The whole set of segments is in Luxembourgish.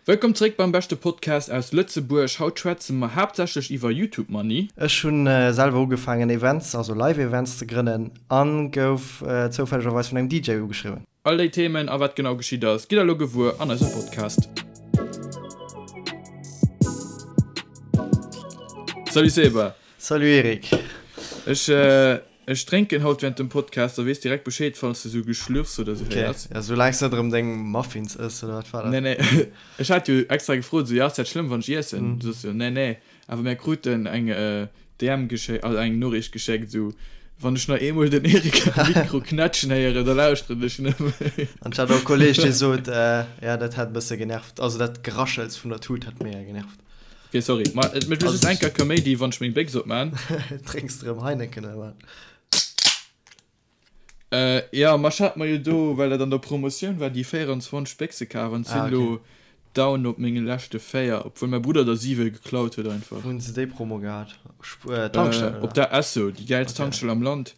Wëllkomm zréck beim beschte Podcast aus Lëtzebuerg. Haut schwätze mer haaptsächlech iwwer Youtube Money. Ech hunn selwer ugefaangen Events, also Live Events ze grënnen an gouf zoufällegerweis vun engem DJ ugeschriwwen. All déi Themen a wat genau geschitt ass, gitt der elo gewuer an eisem Podcast. Salut Seba! Salut Eric! Ech Ech drénken haut während dem Podcast, da weess direkt Bescheed falls de sou Geschlürfs oder sou héiers. Ok, ja soulaangs net erëm deng Muffins ëss oder wat war dat? Nee nee, ech hat jo extra gefrot sou, jo ass dat schlëmm wann ech iessen? Du soss jo nee nee, awer mär kruten eng DM geschéckt, also eng Noriicht geschéckt sou, wann ech nach eemol den Eric am Mikro knätschen héieren, da lauschteren ech net méi. An ech hat och e Kolleg dee sot, jo dat hätt e bësse genervt, also dat Geraschels vun der Tut hätt mega genervt. Ok sorry, ma et mécht just eng Kéier Kaméidi wann ech meng Béchs opmaan. Drénks de rëm Heineken oder wat? Jo, ma ech hat mer jo do, well dat an der Promotioun war, déi 24 Béchse kaf an sinn elo down op menge leschte 4, obwuel mäi Brudder der 7 geklaut huet einfach. Wou hunn se déi Promo gehat? Tankstell oder? Op der Esso, déi gäilst Tankstell am Land.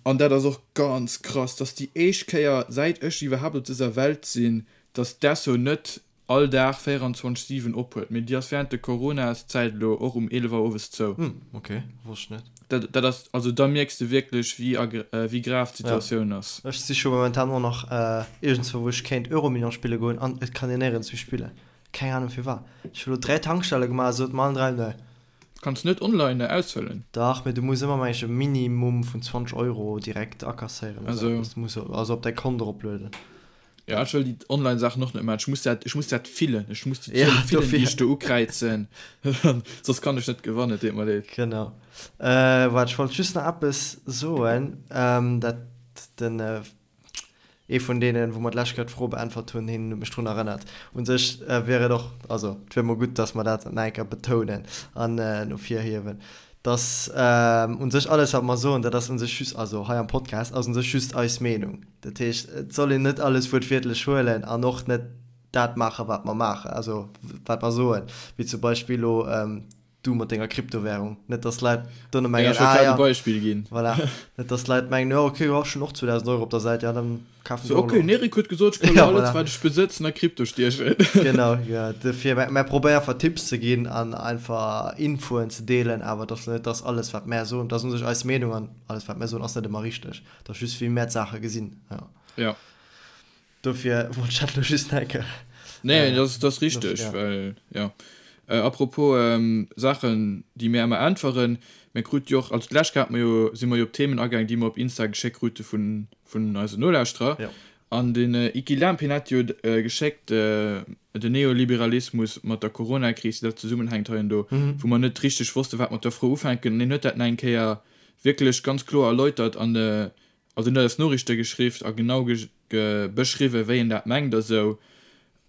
An dat ass och ganz krass, dass déi éischt Kéier säit ech iwwerhaapt op dëser Welt sinn, dass d'Esso net all Dag 24, 7 op huet, mee déi ass während de Coronaszäit elo och um 11 Auer owes zou. Hm, ok, wosst ech net. Dat, dat ass, also da mierks de wierklech wéi agr, wéi grav d'Situatioun ass. Ech siche momentan och nach iergendswou wou ech kéint Euromillions spille goen an et kann een néierens méi spillen. Keng Ahnung firwat. Ech hu lo 3 Tankstelle gemaach, sot mer allen 3 nee. Kanns net online ausfëllen? Dach, mee du muss ëmmer meng ech e Minimum vun 20 Euro direkt akasséieren oder sou eppes. Du muss also op däi Kont eroplueden. Ja, ech wëll déi Online-Saachen och net maachen. Ech muss dat, ech muss dat fillen. Ech muss déi Zuele fillen, déi ech do ukräizen. Soss kann ech net gewannen, et deet mer leed. Genau. Waart, ech wollt just nach eppes soen, dat den, ee vun deenen, wou mer d'lescht Kéier d'Fro beäntwert hunn, hien huet mech drun erënnert. U sech wier et och, also et wier mol gutt, datt mer dat nach eng Kéier betounen an ervirhiewen, dass u sech alles, wat mer soen, dat ass u sech just, also hei am Podcast, ass u sech just eis Meenung. Dat heescht, et soll een net alles wuertwiertlech huelen an och net dat maachen, wat mer maachen, also wat mer soen, wéi zum Beispill elo du mat denger Kryptowährung. Net, dass d'Leit duerno mengen, ah ja, voilà, net, dass d'Leit mengen, jo okay, jo ech hunn och 2.000 Euro op der Säit, jo dann kafen ech och elo. Okay, den Eric huet gesot, ech kann elo alles, wat ech besëtzen, a Krypto stiechen. Genau, jo, dofir, mä probéier einfach Tipps ze ginn an einfach Infoen ze deelen, awer et ass net, dass alles, wat mär soen, dat ass u sech eis Meenung an alles, wat mär soen, ass net ëmmer richteg. Dat ass just wéi mär d'Saache gesinn, jo. Ja. Dofir wollt ech dat elo just nach eng Kéier. Nee, dat ass, dat ass richteg, ja. Well, ja. Apropos Saachen, déi mir ëmmer äntweren, mir krute jo och, also d'lescht Kéier hate mer jo, si mer jo op Themen agaang, déi mer op Insta geschéckt krute vun, vun eisen Nolauschterer. Ja. An den Iki Lamp, hien hat jo geschéckt, den Neoliberalismus mat der Coronakris, wéi dat zesummenhänkt hei an do, wou mer net richteg wosste wat mat der Fro ufänken. An hien huet dat nach eng Kéier wierklech ganz kloer erläutert an also en huet eis Noriichte geschriww a genau beschriwwen, wéi en dat mengt a sou.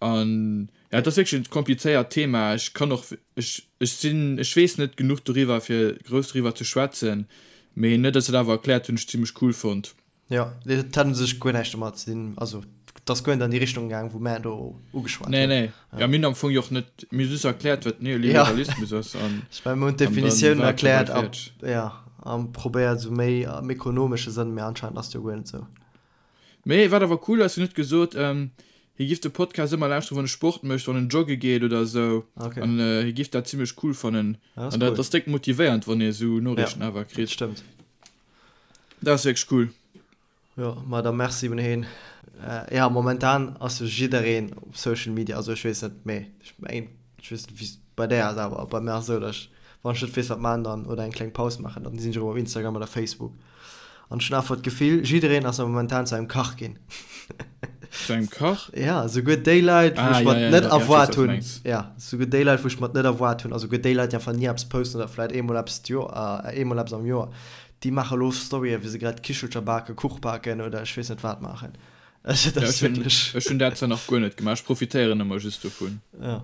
An ja, et ass wierklech e komplizéiert Thema. Ech kann och, ech, ech sinn, ech weess net genuch doriwwer, fir grouss doriwwer ze schwätzen, mee en huet eis dat awer erkläert, hunn ech zimmlech cool fonnt. Jo, et hat u sech guer näischt domat ze dinn, also et ass guer net an déi Richtung gaang, wou mär do ugeschwat hunn. Nee, nee, jo, mir hunn am Fong jo och net, mir hu just erkläert, wat Neoliberalismus ass an. Ech mengen, mir hunn d'Definitioun erkläert a, jo, a probéiert esou méi am ekonomesche Sënn, mee anscheinend ass et jo guer net esou. Mee wat awer cool ass, hien huet gesot, hie giff de Podcast ëmmer lauschteren, wann e Sport mécht, wann en jogge geet oder esou, an hie giff dat zimmlech cool fannen. An dat ass déck motivéiernd, wann ee esou Noriichten awer kritt. Ja, dat stëmmt. Dat ass wierklech cool. Jo, ma da merci un heen. Ja, momentan ass jo jiddereen op Social Media, also ech weess net, mee ech mengen, ech weess net wéi et bei där ass, awer bei mär ass esou, datt ech, wann ech net weess wat maachen dann oder eng kleng Paus maachen, dann sinn ech erëm op Instagram oder Facebook an ech hunn einfach d'Gefill, jiddereen ass momentan zu engem Kach ginn. Zu engem Kach? Ja, souguer déi Leit, wou ech mer net erwaart hunn, ja, souguer déi Leit, wou ech mer net erwaart hunn, also souguer déi Leit, déi einfach ni eppes posten oder vläit eemol eppes d'Joer, eemol eppes am Joer, déi maache lo Storyen, wéi se grad Kichelcher baken, Kuch baken oder ech weess net wat maachen. Also dat ass wierklech. Ech hunn dat zwar nach guer net gemaach, ech profitéieren ëmmer just dovun. Ja,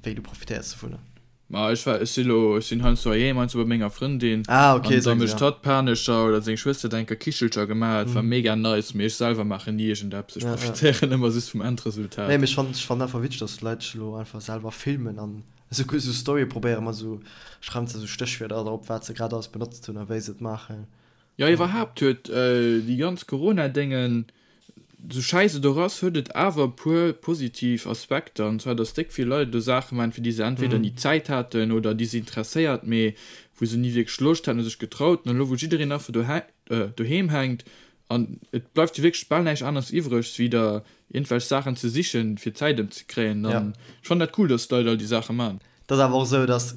wéi, du profitéiers dovunner? Ma ech war, ech si lo, ech sinn heiansdo heiheem, heiansdo bei menger Frëndin. Ah, okay, an da mécht hatt Panescher oder seng Schwëster huet eng Kéier Kichelcher gemaach, et war mega nice, mee ech selwer maachen ni iergendeppes, ech profitéieren ëmmer just vum Endresultat. Nee, mee ech fannen, ech fannen einfach witzeg, dass d'Leit sech elo einfach selwer filmen an esou esou Storye probéieren mat esou, schreiwen se esou Stéchwierder drop, wat se grad alles benotzt hunn a wéi se et maachen. Jo, iwwerhaapt huet déi ganz Corona-Déngen. Sou schäiss et och ass, huet et awer e puer positiv Aspekter, an zwar dass déck vill Leit elo Saache maachen, fir déi se entweder ni Zäit haten oder déi se interesséiert, mee wou se ni wierklech Loscht haten oder sech getraut hunn. An elo wou jiddereen einfach doheem hänkt an et bleift jo wierklech bal näischt aneres iwwreg, wéi der iergendwelch Saachen ze sichen, fir d'Zäit ëmzekréien, dann ech fannen dat cool, dass d'Leit all déi Saache maachen. Et ass awer och esou, dass,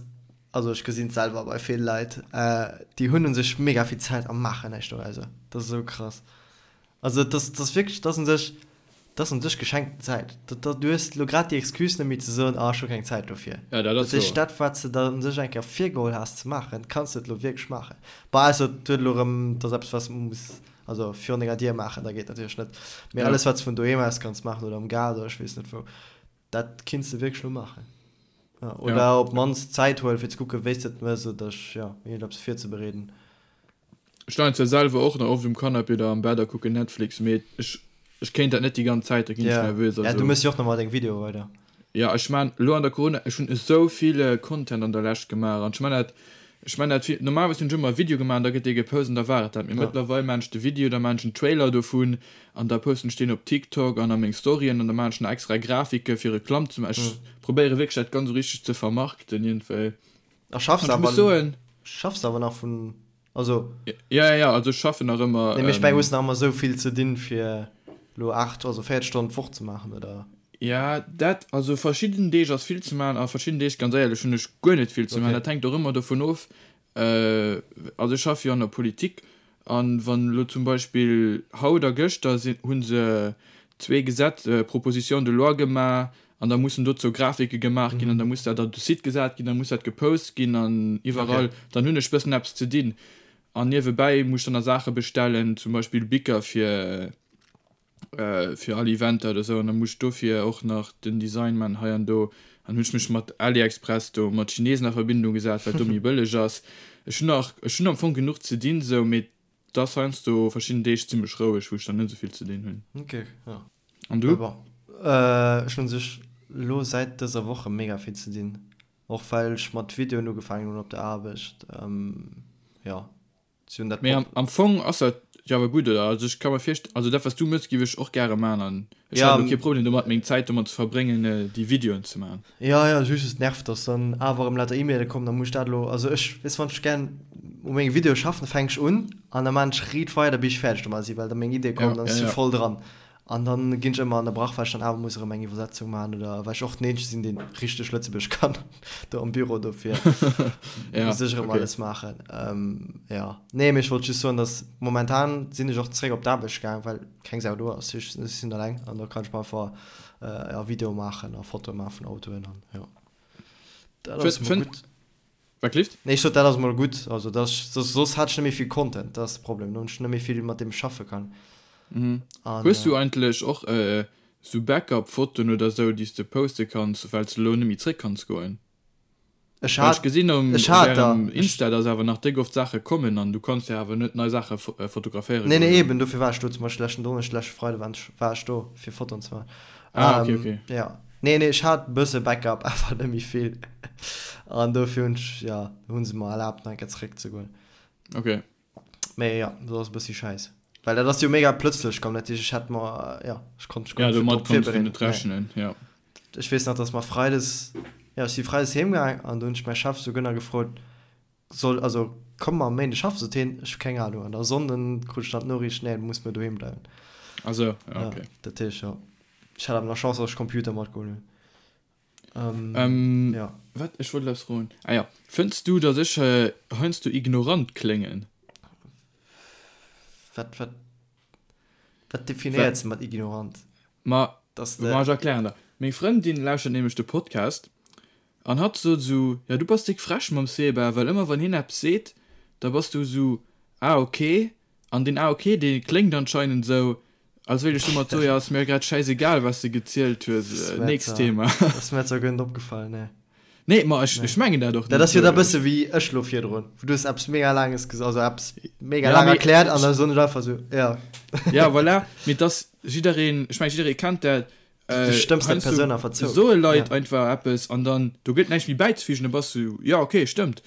also ech gesinn et selwer bei vill Leit, déi hunn u sech mega vill Zäit a maachen näischt dorauser. Dat ass esou krass. Also et ass, et ass wierklech, et ass un sech, et ass un sech geschenkten Zäit. Dat, dat, du hues elo grad déi Excuse net méi ze soen, ah ech hu keng Zäit dofir. Ja, dat ass Dat heescht, wouer. dat wat s de der un sech eng Kéier virgeholl has ze maachen, kanns de et elo wierklech maachen. Bon, ausser et huet elo erëm, et ass eppes wat s de muss, also virun denger Dier maachen, da geet natierlech net. Mee Ja. alles wat s de vun doheem aus kanns maachen oder am Gaart oder ech weess net wou, dat kinns de wierklech elo maachen. Ja, oder Ja. op d'mannst Zäit huelen fir ze kucken, wéi s de et méchs oder, ja, iergendeppes virzebereeden. Ech leien zwar selwer och nach oft um Canapé oder am Bett a kucken Netflix, mee ech ech kéint dat net déi ganz Zäit, da ginn ech Ja, nervös. ja, du Also mëss jo och nach mol deng Videoe weider. ja, ech maan elo an der Corona, ech hunn esou vill Content an der Lescht gemaach an ech maan dat, ech maan dat vill, normalerweis hunn ech ëmmer e Video gemaach an da gëtt dee gepost an da war et dat, mee Ja. mëttlerweil maan ech de Video, da maan ech en Trailer dovun an da posten ech deen op TikTok an a meng Storyen an da maan ech nach extra Grafike fir Reklamm ze maachen. Ech probéiere wierklech dat ganz esou richteg ze vermarkten iergendwéi. A schaffs An ech muss awer, soen. schaffs awer nach vun, also. Ja, ja, ja, also ech schaffen nach ëmmer. Nee, mee ech mengen, hues nach ëmmer esou vill ze dinn, fir elo 8, also 40 Stonnen d'Woch ze maachen, oder? Ja, dat, also verschidden Deeg ass vill ze maachen a verschidden Deeg, ganz éierlech, hunn ech guer net vill ze maachen. Okay. Dat hänkt och ëmmer dovun of, also ech schaffe jo an der Politik an wann elo zum Beispill haut a gëschter sinn, hu se zwee Gesetz, Propositions de loi gemaach An da mussen dozou Grafike gemaach ginn an da muss dat op de Site gesat ginn, da muss dat gepost ginn an iwwerall. Dann hunn ech bëssen eppes ze dinn. An niewebäi muss ech dann nach Saache bestellen, zum Beispill Bicker fir fir all Eventer oder esou. An da muss ech dofir och nach den Design man hei an do. An hunn ech mech mat AliExpress do mat Chinesen a Verbindung gesat, well do méi bëlleg ass. Ech hunn nach, ech hunn am Fong genuch ze dinn esou, mee et ass heiansdo verschidden Deeg zimmlech roueg, wou ech dann net esou vill ze dinn hunn. Ok, jo. An du? Bon, ech hunn sech lo säit dëser Woche mega vill ze dinn, och well ech mat Videoen ugefaangen hunn op der Aarbecht. Jo, si hunn dat. Mee am Fong ass dat jo awer gutt, oder? Also ech ka mer virst-, also dat wat s du mëss giff ech och gäre man an ech hätt elo kee Problem domat meng Zäit domat ze verbréngen déi Videoen ze man. Jo, jo, just et nervt, dass dann awer erëm lauter E-Maile kommen, da muss ech dat elo, also ech, weess wann ech gären u menge Videoe schaffen, da fänk ech un an da man ech riit weider bis ech fäerdeg domat sinn, well da meng Iddie kommen, dann si voll dran. An dann ginn ech ëmmer ënnerbrach, well ech dann awer muss erëm eng Iwwersetzung maachen oder well ech och den eenzege sinn, deen richteg Lëtzebuergesch kann do am Büro, dofir muss ech erëm alles maachen. Jo, nee, mee ech wollt just soen, dass momentan sinn ech och zeréck op d'Aarbecht gaang, well keng Sau do ass. Ech sinn eleng an da kann ech mer einfach, jo, Videoe maachen a Fotoe maache vun Autoen an jo, dat ass emol gutt. Wat gelift? Nee, ech sot, dat ass mol gutt. Also dat ass, soss hat ech net méi vill Content, dat ass de Problem, do hunn ech net méi vill, mat deem ech schaffe kann. Mhm. An, Hues du eigentlech och sou Backup-Fotoen oder sou, déi s de poste kanns, well s de elo net méi zréck kanns goen? Ech Well ech hat, gesinn um ech op hat der, ärem ech. Insta, dass awer nach déck oft Saache kommen an du kanns jo awer net nei Saache fotograféiere Nee, goen nee, elo. eben, dofir war ech do zum Beispill leschten Donneschden, leschte Freide war ech, war ech do, fir Fotoen ze maachen. Ah, okay, okay. Jo. Nee, nee, ech hat e bësse Backup, awer net méi vill. An dofir hunn ech, jo, hu se mer erlaabt, nach eng Kéier zeréckzegoen. Okay. Mee jo, dat ass e bëssi schäiss. Well dat ass jo mega plëtzlech komm, dat heescht, ech hätt mer, jo, ech konnt mech guer Ja, net domat drop konns du virbereeden. net rechnen, jo. Ech weess nach, dass mer freides, jo, ech si freides heem gaang an do hunn ech mäi Chef souguer nach gefrot, Soll, also komme mer am Méinde schaffen? Sot hien, ech hu keng Ahnung. An da Sonnden krut ech dann d'Noriicht, nee, du muss muer doheem bleiwen. Ah sou, ja, okay. Ja, dat heescht, jo. Ech hat awer nach Chance, dass ech Computer matgeholl hunn. Ähm, ähm, ja. Wat? Ech wollt eppes froen. Ah ja. Fënns du, dass ech äh, heiansdo ignorant kléngen? Wat, wat, wat definéiers de mat ignorant? Ma, Dass ma de. ech erklären der. Meng Frëndin lauschtert nämlech de Podcast an hatt sot esou, ja du bass déck frech mam Seba, well ëmmer wann hien eppes seet, da bass du esou, ah ok. An deen ah ok, dee kléngt anscheinend esou, als wéilt ech domat soen, jo ass mir grad schäisegal wat s de gezielt hues, nächst Thema. Dat ass mir zwar guer net opgefall, nee. Nee, ma ech, ech mengen dat och Dat net ass jo da esou. bësse wéi ech lo virdrun, wou du hues eppes mega laanges ges-, also eppes mega Ja, laang mee erkläert an da soen ech einfach esou, ja. Ja, voilà, mee et ass jiddereen, ech mengen jidderee kennt dat, Du stëmms der Persoun einfach zou. Soe Leit einfach eppes an dann do gëtt näischt méi bäizefügen, da bass du jo okay, stëmmt.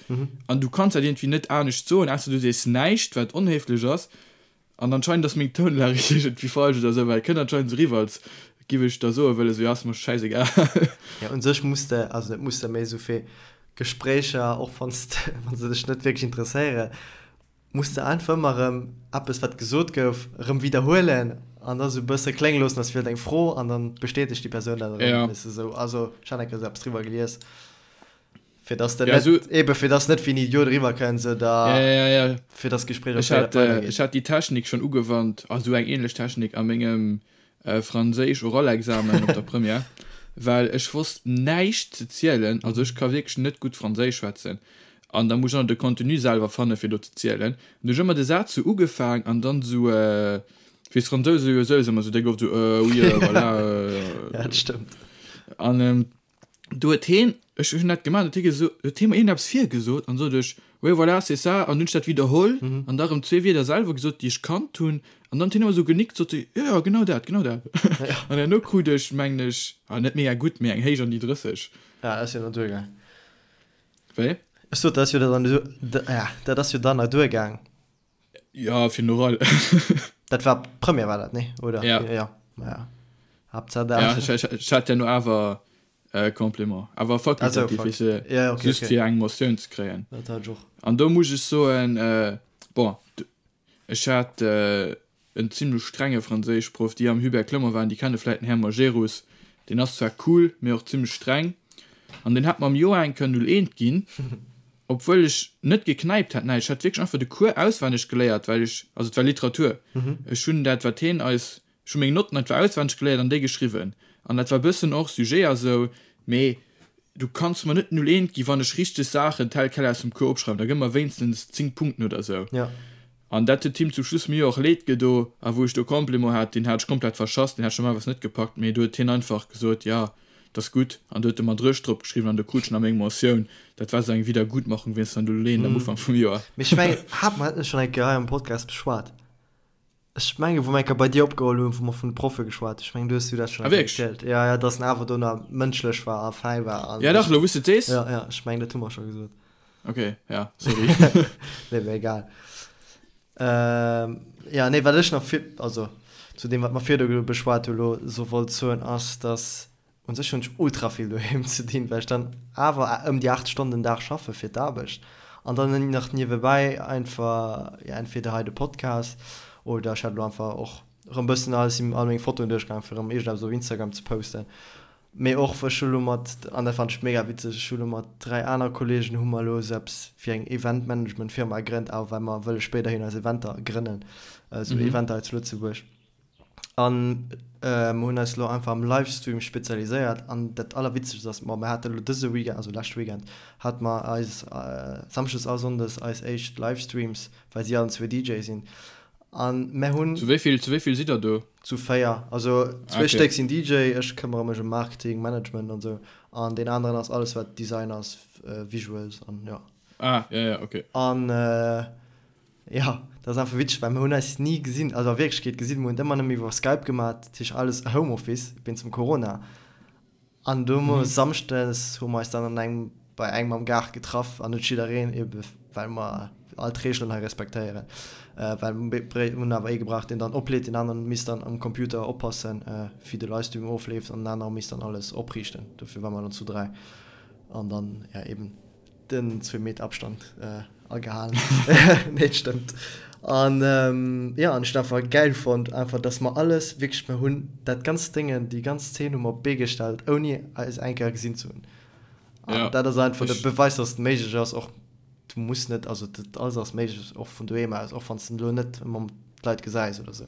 An du kanns dat iergendwéi net anescht soen, ausser du sees näischt, wat onhéiflech ass. An anscheinend ass meng Tounlag iergendwéi falsch oder esou, well et kënnt anscheinend esou eriwwer, als giff ech da soe wëllen, esou, jo, ass mer schäisegal. Jo, un sech muss de, also net muss de, mee esou fir Gespréicher, och wann s de, wa se dech net wierklech interesséieren, muss de einfach ëmmer erëm eppes, wat gesot gouf, erëm widderhuelen an da sou e bësse klénge loossen, als wier et eng Fro an dann bestätegt déi Persoun dat erëm, Ja. weess de, esou. Also ech hat eng Kéier esou eppes driwwer gelies. Fir dass de Ja, net, so, eben fir dass net wéi en Idiot eriwwer kënns oder ja, ja, ja. fir dass d'Gespréich och Ech weider hat, äh, weidergeet. ech hat déi Technik schonn ugewannt, also eng ähnlech Technik a mengem äh, Franséisch-Oralexamen op der Première, well ech wosst näischt ze zielen, also ech ka wierklech net gutt Franséisch schwätzen an da muss ech och nach de Contenu selwer fanne fir do ze zielen. An du hunn ech ëmmer de Saz sou ugefaang an dann sou, äh, wéi d'Fransouse jo sou ëmmer sou déck oft sou, euh, oui, euh, voilà, euh, Ja, dat stëmmt. an ähm, Do huet heen, ech hunn dat gemaach, huet hie geso, huet hie mer iergendeppes virgesot an sot ech, oui voilà, c'est ça, an hunn ech dat widderholl an da rëm zwee Wierder selwer gesot, déi ech kannt hunn, an dann huet hien ëmmer esou genickt, sot e, jo, jo, genau dat, genau dat. An herno krut ech, mengen ech, ah net mega gutt, mee eng héich an déi 30. Ja, dat ass jo nach duergaang. Wéi? Ech sot, dat ass jo dann, ja, dat ass jo dann nach duergaang. Ja, fir den Oral. Dat war Première war dat, nee? Oder? Ja. Ja, ja. Haaptsaach dat. Ja, ech, ech, ech hat ja no awer äh, Complément. Awer fakultativ, also, weess de, ja, okay, just okay. fir eng Motioun ze kréien. Dat hat ech och. An do muss ech soen, äh, bon, ech hat äh, en zimlech strenge Franséischproff, déi am Hubert Clement waren, déi kenne vläit den Här Majerus, deen ass zwar cool, mee och zimlech streng, an deen hat mer am Joer eng Kéier 01 ginn, obwuel ech net geknäipt hat, näischt, ech hat wierklech einfach de Cours auswenneg geléiert, well ech, also et war Literatur, ech hunn dat wat heen eis, ech hu meng Notten einfach auswenneg geléiert an déi geschriwwen, an dat war bëssen och Sujet a sou, mee du kanns mer net 01 ginn, wann ech richteg Saachen tel quel aus dem Cours opschreiwen, da gëmm mer wéinstens 10 Punkten oder sou. An dat huet him zum Schluss mir och leed gedo. A wou ech do Complément hat, deen hat ech komplett verschass, deen hat ech normalerweis net gepackt, mee do huet hien einfach gesot, jo, 't ass gutt. An do huet e mer Dréch drop geschriwwen an do krut ech nach meng Mentioun. Dat war sou eng Wiedergutmachung wéinst der Null-Eent am Ufank vum Joer. Mee ech mengen, hate mer dat net schonn eng Kéier hei am Podcast beschwat? Ech mengen, wou mer eng Kéier bei dir opgeholl hunn, wou mer vun de Proffe geschwat hunn. Ech mengen, du hues du dat schonn Ah, eng Kéier wierklech? erzielt. Jo, jo, dass en awer do nach mënschlech war a fäi war an Ja dach, elo wou s de et sees. Jo, jo, ech mengen, dat hu mer scho gesot. Ok, ja, sorry. Nee, mee egal. Ähm, ja, nee, wat ech nach vir, also zu deem, wat mer virdu beschwat hu lo, so wollt soen, ass, dass u sech hunn ech ultra vill doheem ze dinn, well ech dann awer ëm déi 8 Stonnen den Dag schaffe fir d'Aarbecht an dann nach niewebäi einfach, ja, entweder hei de Podcast oder ech hat elo einfach och erëm bëssen alles, all meng Fotoen duerchgaangen, fir erëm iergendeppes op Instagram ze posten. Mee och, ech hu lo mat, an dat fannen ech mega witzeg, ech hu lo mat 3 aner Kollegen hu mer elo esou eppes wéi eng Event-Management-Firma gegrënnt, awer well mer wëlle spéiderhin eis Eventer grënnen, esou Eventer hei zu Lëtzebuerg. An mer hunn eis elo einfach am Livestream spezialiséiert. An dat Allerwitzegst ass, ma mer hate lo dëse Weekend, also leschte Weekend, hate mer eis Samschdes a Sonndes eis éischt Livestreams, well si allen zwee DJ sinn. An mer hunn. Zu wéi vill, zu wéi vill sidd der do? Zu 4. Also zwee okay. Stéck sinn DJ, ech këmmere mech ëm Marketing, Management an sou. An deen aneren ass alles wat Design ass, Visuals an jo. Ah, ja, ja, okay. An jo, dat ass einfach witzeg, well mer hunn eis ni gesinn, also a Wierklechkeet gesinn, mer hunn et ëmmer nëmme iwwer Skype gemaat, dat heescht alles Homeoffice wéinst dem Corona. An du mhm. Samschdes hu mer eis dann an engem bei engem am Gaart getraff an net jiddereen ebe well mer all d'Reegelen hei respektéieren. Äh, well hunn awer ee gebraucht, deen dann opleet, den aneren misst dann am Computer oppassen, äh, wéi de Livestream ofleeft an den anere misst dann alles opriichten. Dofir war mer dann zu 3 an dann ja eben Den zwee Meter Abstand agehalen. Nee, et stëmmt. An jo, an ech hunn einfach gäil fonnt, einfach dass mer alles wierklech, mer hunn dat ganzt Déngen, déi ganz Zeen hu mer op d'Bee gestallt, ouni eis eng Kéier gesinn ze hunn. An dat ass einfach de Beweis, dass et méiglech ass, och du muss net, also dat alles ass méiglech, och vun doheem aus, och wann s de elo net ëmmer d'Leit gesäis oder sou.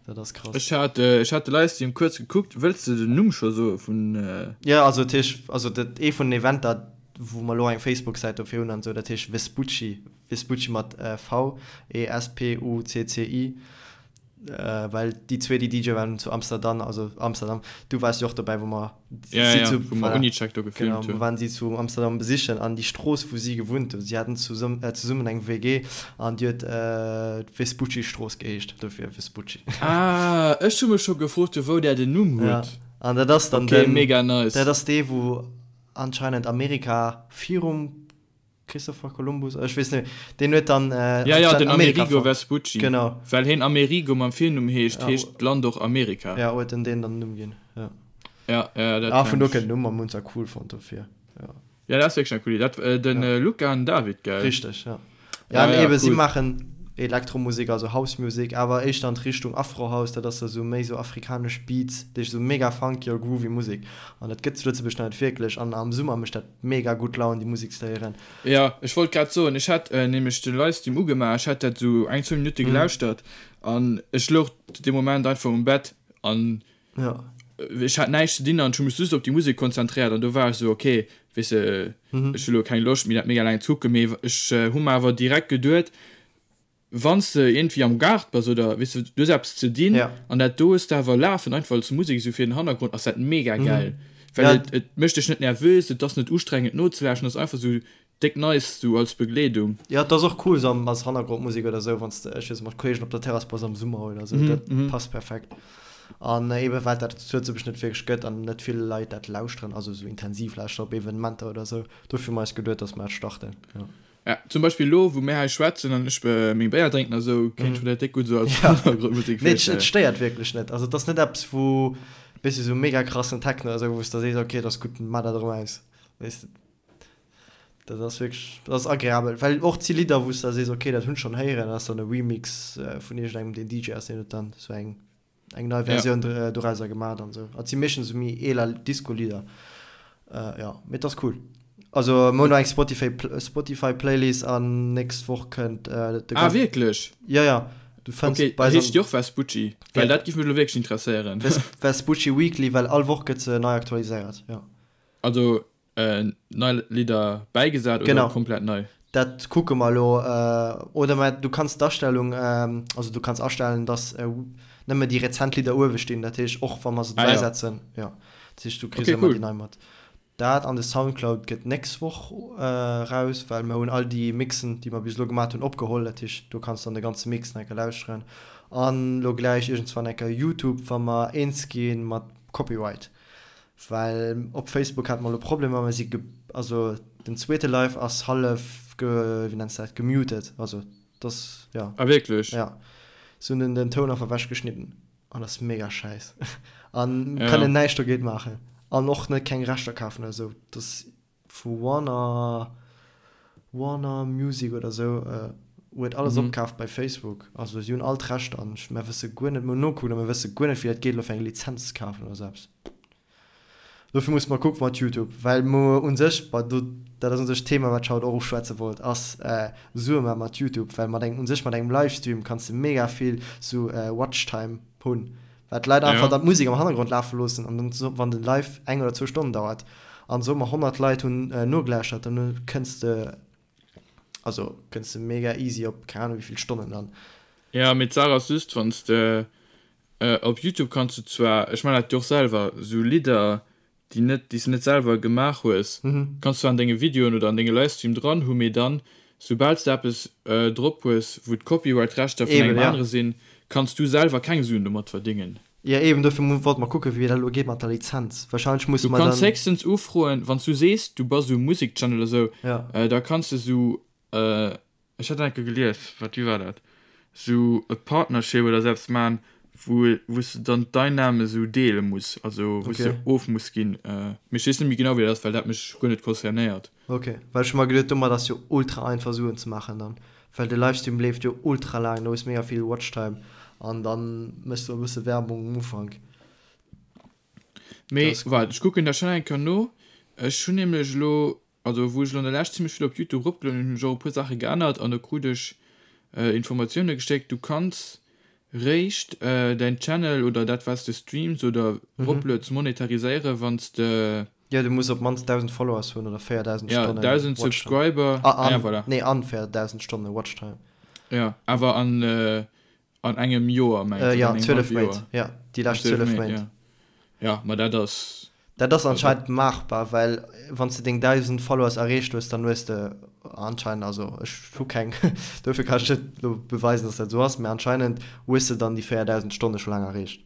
Dat ass krass. Ech hat, ech hat de Livestream kuerz gekuckt. Wëlls de den Numm scho soe vun. Jo, also dat heescht, also dat ee vun den Eventer, wou mer elo eng Facebook-Säit dofir hunn an esou, dat heescht Vespucci, Vespucci mat V, E S P U C C I, well déi zwee, déi DJ waren zu Amsterdam, also Amsterdam, du waars jo och dobäi, wou mer Ja, ja, ja, wou mer Unicheck do gefilmt hunn. Genau, mer waren si zu Amsterdam besichen an déi Strooss, wou si gewunnt hunn, si haten zesummen eng WG an déi huet d'Vespucci-Strooss geheescht, dofir Vespucci. Ah, ech hu mech scho gefrot, vu wou där den Numm hutt. Ja, an dat ass dann den. Okay, mega nice. Dat ass dee, wou anscheinend Amerika virum. Christopher Columbus, ech weess net, deen huet dann Ja, ja, den Amerika Amerigo fonnt. Vespucci. Genau. Well heen Amerigo mam Virnumm heescht, Ja, heescht d'Land och Amerika. ja, huet en deen dann den Numm ginn, ja. Ja, ja, dat Ah, vun kenn do ech. kënnt den Numm a mir hunn se cool fonnt dofir, ja. Ja, dat ass wierklech eng cool Idee. Dat, äh, den Ja. äh, Luca an David, gell? Richteg, ja. Ja, Ja, an ja, ebe si cool. maachen Elektromusek, also House Music, awer éischter an d'Richtung Afro House, dat ass da sou méi sou afrikanesch Beats, dat heescht sou mega funky a groovy Musek. An dat gëtt zu Lëtzebuerg nach net wierklech an am Summer mécht dat mega gutt Laun déi Musek ze héieren. Jo, ech wollt grad soen, ech hat nämlech de Livestream ugemaach, ech hat dat sou eng, zwou Minutte gelauschtert an ech louch dee Moment einfach um Bett an ech hat näischt ze dinn an ech hu mech just op déi Musek konzentréiert an do war ech sou, ok, weess de, ech hu lo keng Loscht méi dat mega laang ze kucken, mee ech hu mer awer direkt geduet, Wann s de iergendwéi am Gaart bass oder, weess de, du hues eppes ze dinn an dat do hues de awer lafen, einfach als Musek esou fir den Hannergrond, ass dat mega gäil. Well et, et mécht dech net nervös, et ass net ustrengend nozelauschteren, et ass einfach esou déck nice esou als Begleedung. Jo, et ass och cool esou als Hannergrondmusek oder esou, wann s de, ech weess net, mat Kolleegen op der Terrass bass am Summer oder esou, dat passt perfekt. An eebe well dat zu Lëtzebuerg net wierklech gëtt an net vill Leit dat lauschteren, also esou intensiv lauschteren op Evenementer oder esou, dofir hu mer eis geduet, dass mer dat starten, jo. Ja, zum Beispill elo, wou mir hei schwätzen an ech meng Béier drénken a sou, kéint ech mer dat déck gutt sou als Hannergrondmusek Nee, et stéiert wierklech net. Also et ass net eppes, wou, weess de, sou mega krassen Techno oder sou, wou s de sees, ok, et ass gutt, maach dat erëm aus. Weess de, dat ass wierklech, dat ass agreabel. Well och et si Lidder, wou s de da sees, ok, dat hunn ech schonn héieren, dat ass dann e Remix vun iergendengem, deen DJ ass, deen huet dann sou eng eng nei Versioun ja. dorauser gemaat an sou. Et si meeschtens sou méi eeler Disco-Lidder. Äh, ja, mee et ass cool. Also mir hunn eng Spotify, Spotify Playlist an nächst Woch kënnt äh, de Ah, wierklech? Ja, ja. Du fënns okay, bei heescht déi och Vespucci? Well ja. dat giff mech lo wierklech interesséieren. Ves Vespucci Weekly, well all Woch gëtt se nei aktualiséiert, ja. Also Nei Lidder bäigesat oder Genau. komplett nei? Dat kucke mer elo. Oder mä du kanns d'Astellung, also du kanns astellen, dass nëmme déi rezent Lidder uewe stinn. Dat heescht, och wa mer se Ah ja. bäisetzen, jo. Dat heescht, du kriss Okay, ëmmer cool. déi nei mat. Dat an de Soundcloud gëtt d'nächst Woch raus, well mer hunn all déi Mixen, déi mer bis elo gemat hunn, opgeholl. Dat heescht, do kanns du dann de ganze Mix nach eng Kéier lauschteren. An elo gläich iergendswann eng Kéier YouTube, wa mer eens gi mat Copyright. Well op Facebook hate mer elo Problemer, mer si ge, also den zweete Live ass hallef ge, wéi nenns de dat, gemuted, also et ass, jo. Ah wierklech? Jo, se hunn den den Toun einfach ewech geschnidden an ass mega schäiss an Ja. kënnen näischt dogéint maachen an och net keng Rechter kafen oder esou, et ass vu Warner, Warner Music oder esou huet alles opkaaft bei Facebook, also si hunn all d'Rechter an ech, mer wësse guer net, mer hunn nokuckt a mer wësse guer net wéi dat geet elo fir eng Lizenz ze kafen oder esou eppes. Dofir musse mer kucke mat Youtube, well mer u sech, bon do, dat ass u sech d'Thema wat ech haut och uschwätze wollt, ass Sue maache mat Youtube, well mat engem, u sech mat engem Livestream kanns de mega vill sou Watchtime hunn. Well d'Leit einfach dann d'Musek am Hannergrond lafe loossen an dann, wann den Live eng oder zwou Stonnen dauert an soe mer 100 Leit hunn nogelauschtert, dann kënns de, also kënns de mega easy op keng Ahnung wéivill Stonnen dann. Jo, mee d'Saach ass just, wann s de op Youtube kanns du zwar, ech man dat jo och selwer, sou Lidder déi net, déi s de net selwer gemaach hues, kanns zwar an denge Videoen oder an denge Livestream dran hu, mee dann, soubal s de eppes drop hues, wou d'Copyright-Rechter vun engem anere sinn, kanns du selwer keng Suen domat verdéngen. Jo, eben, dofir wollte mer kucken, wéi dat elo geet mat der Lizenz. Wahrscheinlech musse Du mer kanns dann. héchstens ufroen, wann s du sees, du bass esou Musek-Channel oder sou, da kanns de sou Ech hat enke gelies, wat wéi war dat, sou e Partnership oder sou eppes man, wou wou s de dann d'Einnahme sou deele muss, also wou s de Okay. of muss ginn. Mee ech weess net méi genau wéi dat ass, well dat mech guer net concernéiert. Ok, well ech hu mer geduet domat ass jo ultra einfach Suen ze maachen dann, well de Livestream leeft jo ultra laang, do hues mega vill Watchtime an dann méchs du e bësse Werbung um Ufank. Mee waart, ech kucken dat schnell eng Kéier no. Ech hunn nämlech elo Also wou ech elo an der Lescht zimmlech vill op Youtube eropgelueden hunn, hunn ech och e puer Saache geännert an do krut ech Informatioune gestéckt, du kanns réischt däin Channel oder dat wat s de streams oder eroplueds monetariséiere wann s de. Jo, du muss op d'mannst 1.000 Followers hunn oder 4.000 Ja, Stonnen 1.000 Watchtime. Subscriber, Ah, ah ja an, voilà. nee, an 4.000 Stonne Watchtime. Jo, awer an an engem Joer mengs Äh, oder ja, an engem 12 hallwe Méint. Joer? Ja, déi An lescht 12 12 Méint, Méint. ja. Ja, ma dat ass. Dat ass anscheinend maachbar, well wann s de deng 1.000 Followers erreecht hues, dann hues de anscheinend, also ech hu keng, dofir kann ech net elo beweisen, dass dat esou ass, mä anscheinend hues de dann déi 4.000 Stonne scho laang erreecht.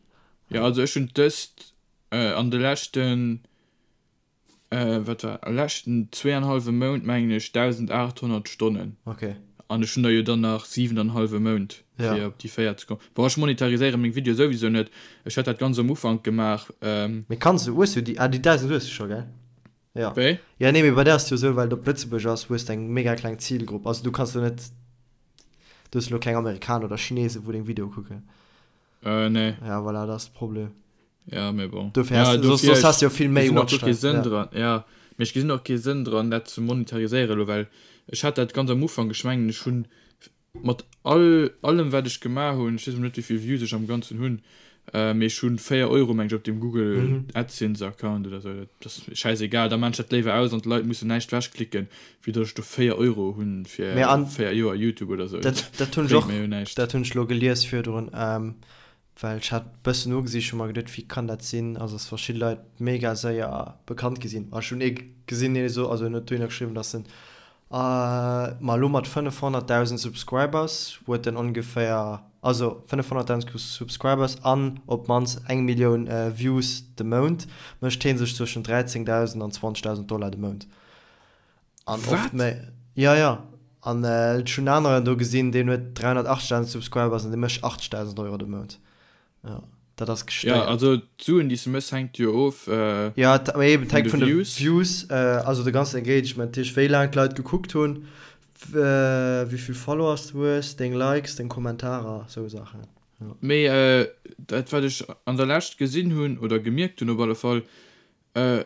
Jo, also ech hunn dëst an de leschten. Wat war leschten zweeanhallwe Mount mengen ech 1.800 Stonnen. Okay. An ech hunn der jo dann nach siwenanhallwe Mount fir op déi 4 ze kommen. Bon ech monetariséiere meng Videoe souwisou net. Ech hat dat ganz am Ufank gemaach. Mee kanns du, hues du déi, ah déi 1.000 hues du scho gell? Jo. Wéi? Jo nee mee bei där ass et jo esou, well et op Lëtzebuerg ass, hues de eng mega kleng Zilgrupp. Also du kanns do net, du hues elo keng Amerikaner oder Chinesen wou deng Videoe kucken. Äh, nee. Ja, voilà, dat ass de Problem. Ja, mee bon. Dofir ja, hast, dofir, soss hast du jo vill méi Watchtime. Sënn ja. dran. Ja, mee ech gesinn och kee Sënn dran, dat ze monetariséieren elo, well ech hat dat ganz am Ufank, ech mengen, ech hunn mat all, allem wat ech gemaach hunn, ech weess net wéi vill Views ech am Ganzen hunn, äh, mee ech hunn 4 Euro meng ech op dem Google mhm. AdSense Account oder sou, dat ass schäisegal, da maan ech dat léiwer aus an d'Leit mussen näischt wechklicken, wéi datt ech do 4 Euro hunn fir 4 Joer Youtube oder sou. Dat, dat hunn ech och, dat hunn ech lo gelies virdrun, ähm, well ech hat bëssen nogesicht, hu mer geduet, wéi kann dat sinn, also dass verschidde Leit mega séier bekannt gi sinn. A ech hunn ee gesinn, dee so, also en huet dohinner geschriwwen, dass en, ma elo mat 500.000 Subscribers huet en ongeféier, also 500.000 Subscribers an op d'mannst eng Millioun Views de Mount, mécht hee sech zwëschen 13.000 an 20.000 Dollar de Mount. An oft méi. Ja, ja. An ech hunn aneren do gesinn, deen huet 380.000 Subscribers an dee mécht 80.000 Euro de Mount. Ja, dat ass gestéiert. Ja, also d'Suen, déi s de méchs, hänkt jo of Ja, mee eben, et hänkt vun de Views. Views, also de ganzen Engagement, dat heescht, wéi laang d'Leit gekuckt hunn, wéi vill Followers du hues, deng Likes, deng Kommentarer, sou Saachen. Ja. Mee dat, wat ech an der Lescht gesinn hunn oder gemierkt hunn op alle Fall,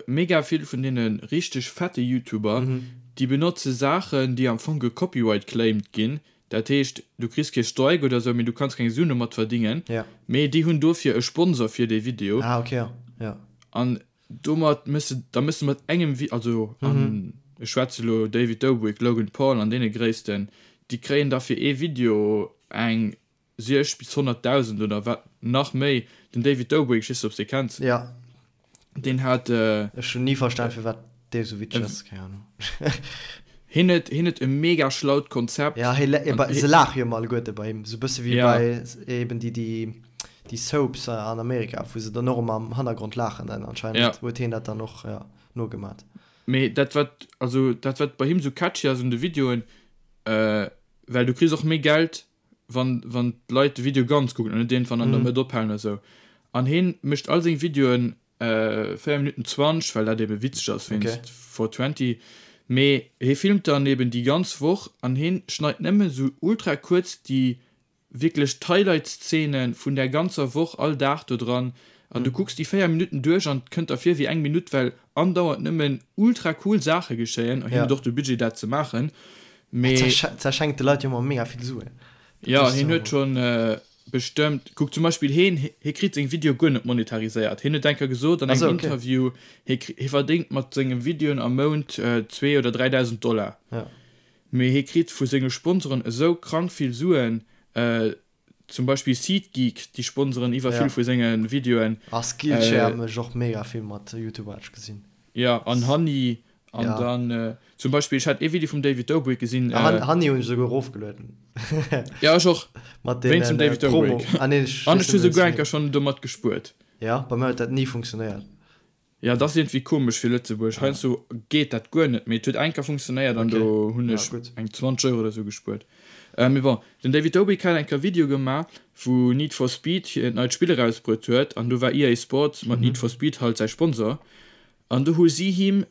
Mega vill vun deene richteg fette Youtuber, déi benotze Saachen, déi am Fong gecopyright claimed ginn. Dat heescht, du kriss kee Strike oder sou, mee du kanns keng Suen domat verdingen. Mee déi hunn dofir e Sponsor fir dee Video. Ah, okay, ja. An domat méchs de, da méchs de mat engem Vi-, also an ech schwätze lo David Dobrik, Logan Paul an deene Gréissten, déi kréien da fir ee Video eng 60 bis 100.000 oder wat nach méi. Den David Dobrik, ech weess net ob s de kenns, Ja. deen hat. Ech hunn ni verstan firwat dee sou witzeg ass, keng Ahnung. Hien huet, hien huet e mega schlaut Konzept. Ja, hie, se laache jo ëmmer alleguerte bei him, sou bësse wéi bei eben déi, déi, déi Soaps an Amerika, wou se dann och ëmmer am Hannergrond laachen, dann anscheinend huet hien dat dann och, ja, nogemat. Mee dat wat, also dat wat bei him sou catchy ass un de Videoen, well du kriss och méi Geld wann wann d'Leit de Video ganz kucken an net iergendwann an der Mëtt ophalen oder sou. An heen mécht all seng Videoen 4 Minutten 20, well dat ebe witzeg ass wéinst 420. Mee hee filmt dann eben déi ganz Woch an heen schneit nëmme sou ultra kuerz déi wierklech d'Highlight-Szene vun där ganzer Woch all Dag do dran. An du kucks déi 4 Minutten duerch an et kënnt der vir wéi eng Minutt, well andauernd nëmmen ultra cool Saache geschéien. An hien huet och de Budget dat ze maachen. Mee. Zerschenkt de Leit jo ëmmer mega vill Suen. Jo, hien huet schonn bestëmmt, kuck zum Beispill hien, hie kritt seng Videoe guer net monetariséiert. Hien huet eng Kéier gesot an engem Interview, hie hie verdéngt mat senge Videoen am Mount 2 oder 3.000 Dollar. Mee hie kritt vu senge Sponsoren esou krank vill Suen, zum Beispill SeatGeek, déi sponseren iwwer vill vu senge Videoen. A Skillshare mécht och mega vill mat YouTuber, hat ech gesinn. Jo, an Honey An ja. dann äh, zum Beispill ech hat ee Video vum David Dobrik gesinn. Äh, Han, Hanni hunn ech souguer erofgelueden. ja ech och. Mat den zum David äh, Promo. Ah, nee, ech, An ech hu souguer eng Kéier schonn domat gespuert. Ja, bei mir huet dat ni funktionéiert. Ja, dat ass iergendwéi komesch fir Lëtzebuerg. Heiansdo geet dat guer net, mee et huet eng Kéier funktionéiert an okay. do hunn ech ja, eng 20 Euro oder sou gespuert. Äh, mee bon, den David Dobrik hat eng Kéier Video gemaach, wou Need for Speed hiert neit Spill erausbruet huet an do war EA Sports mat mhm. Need for Speed halt säi Sponsor. An do hu si him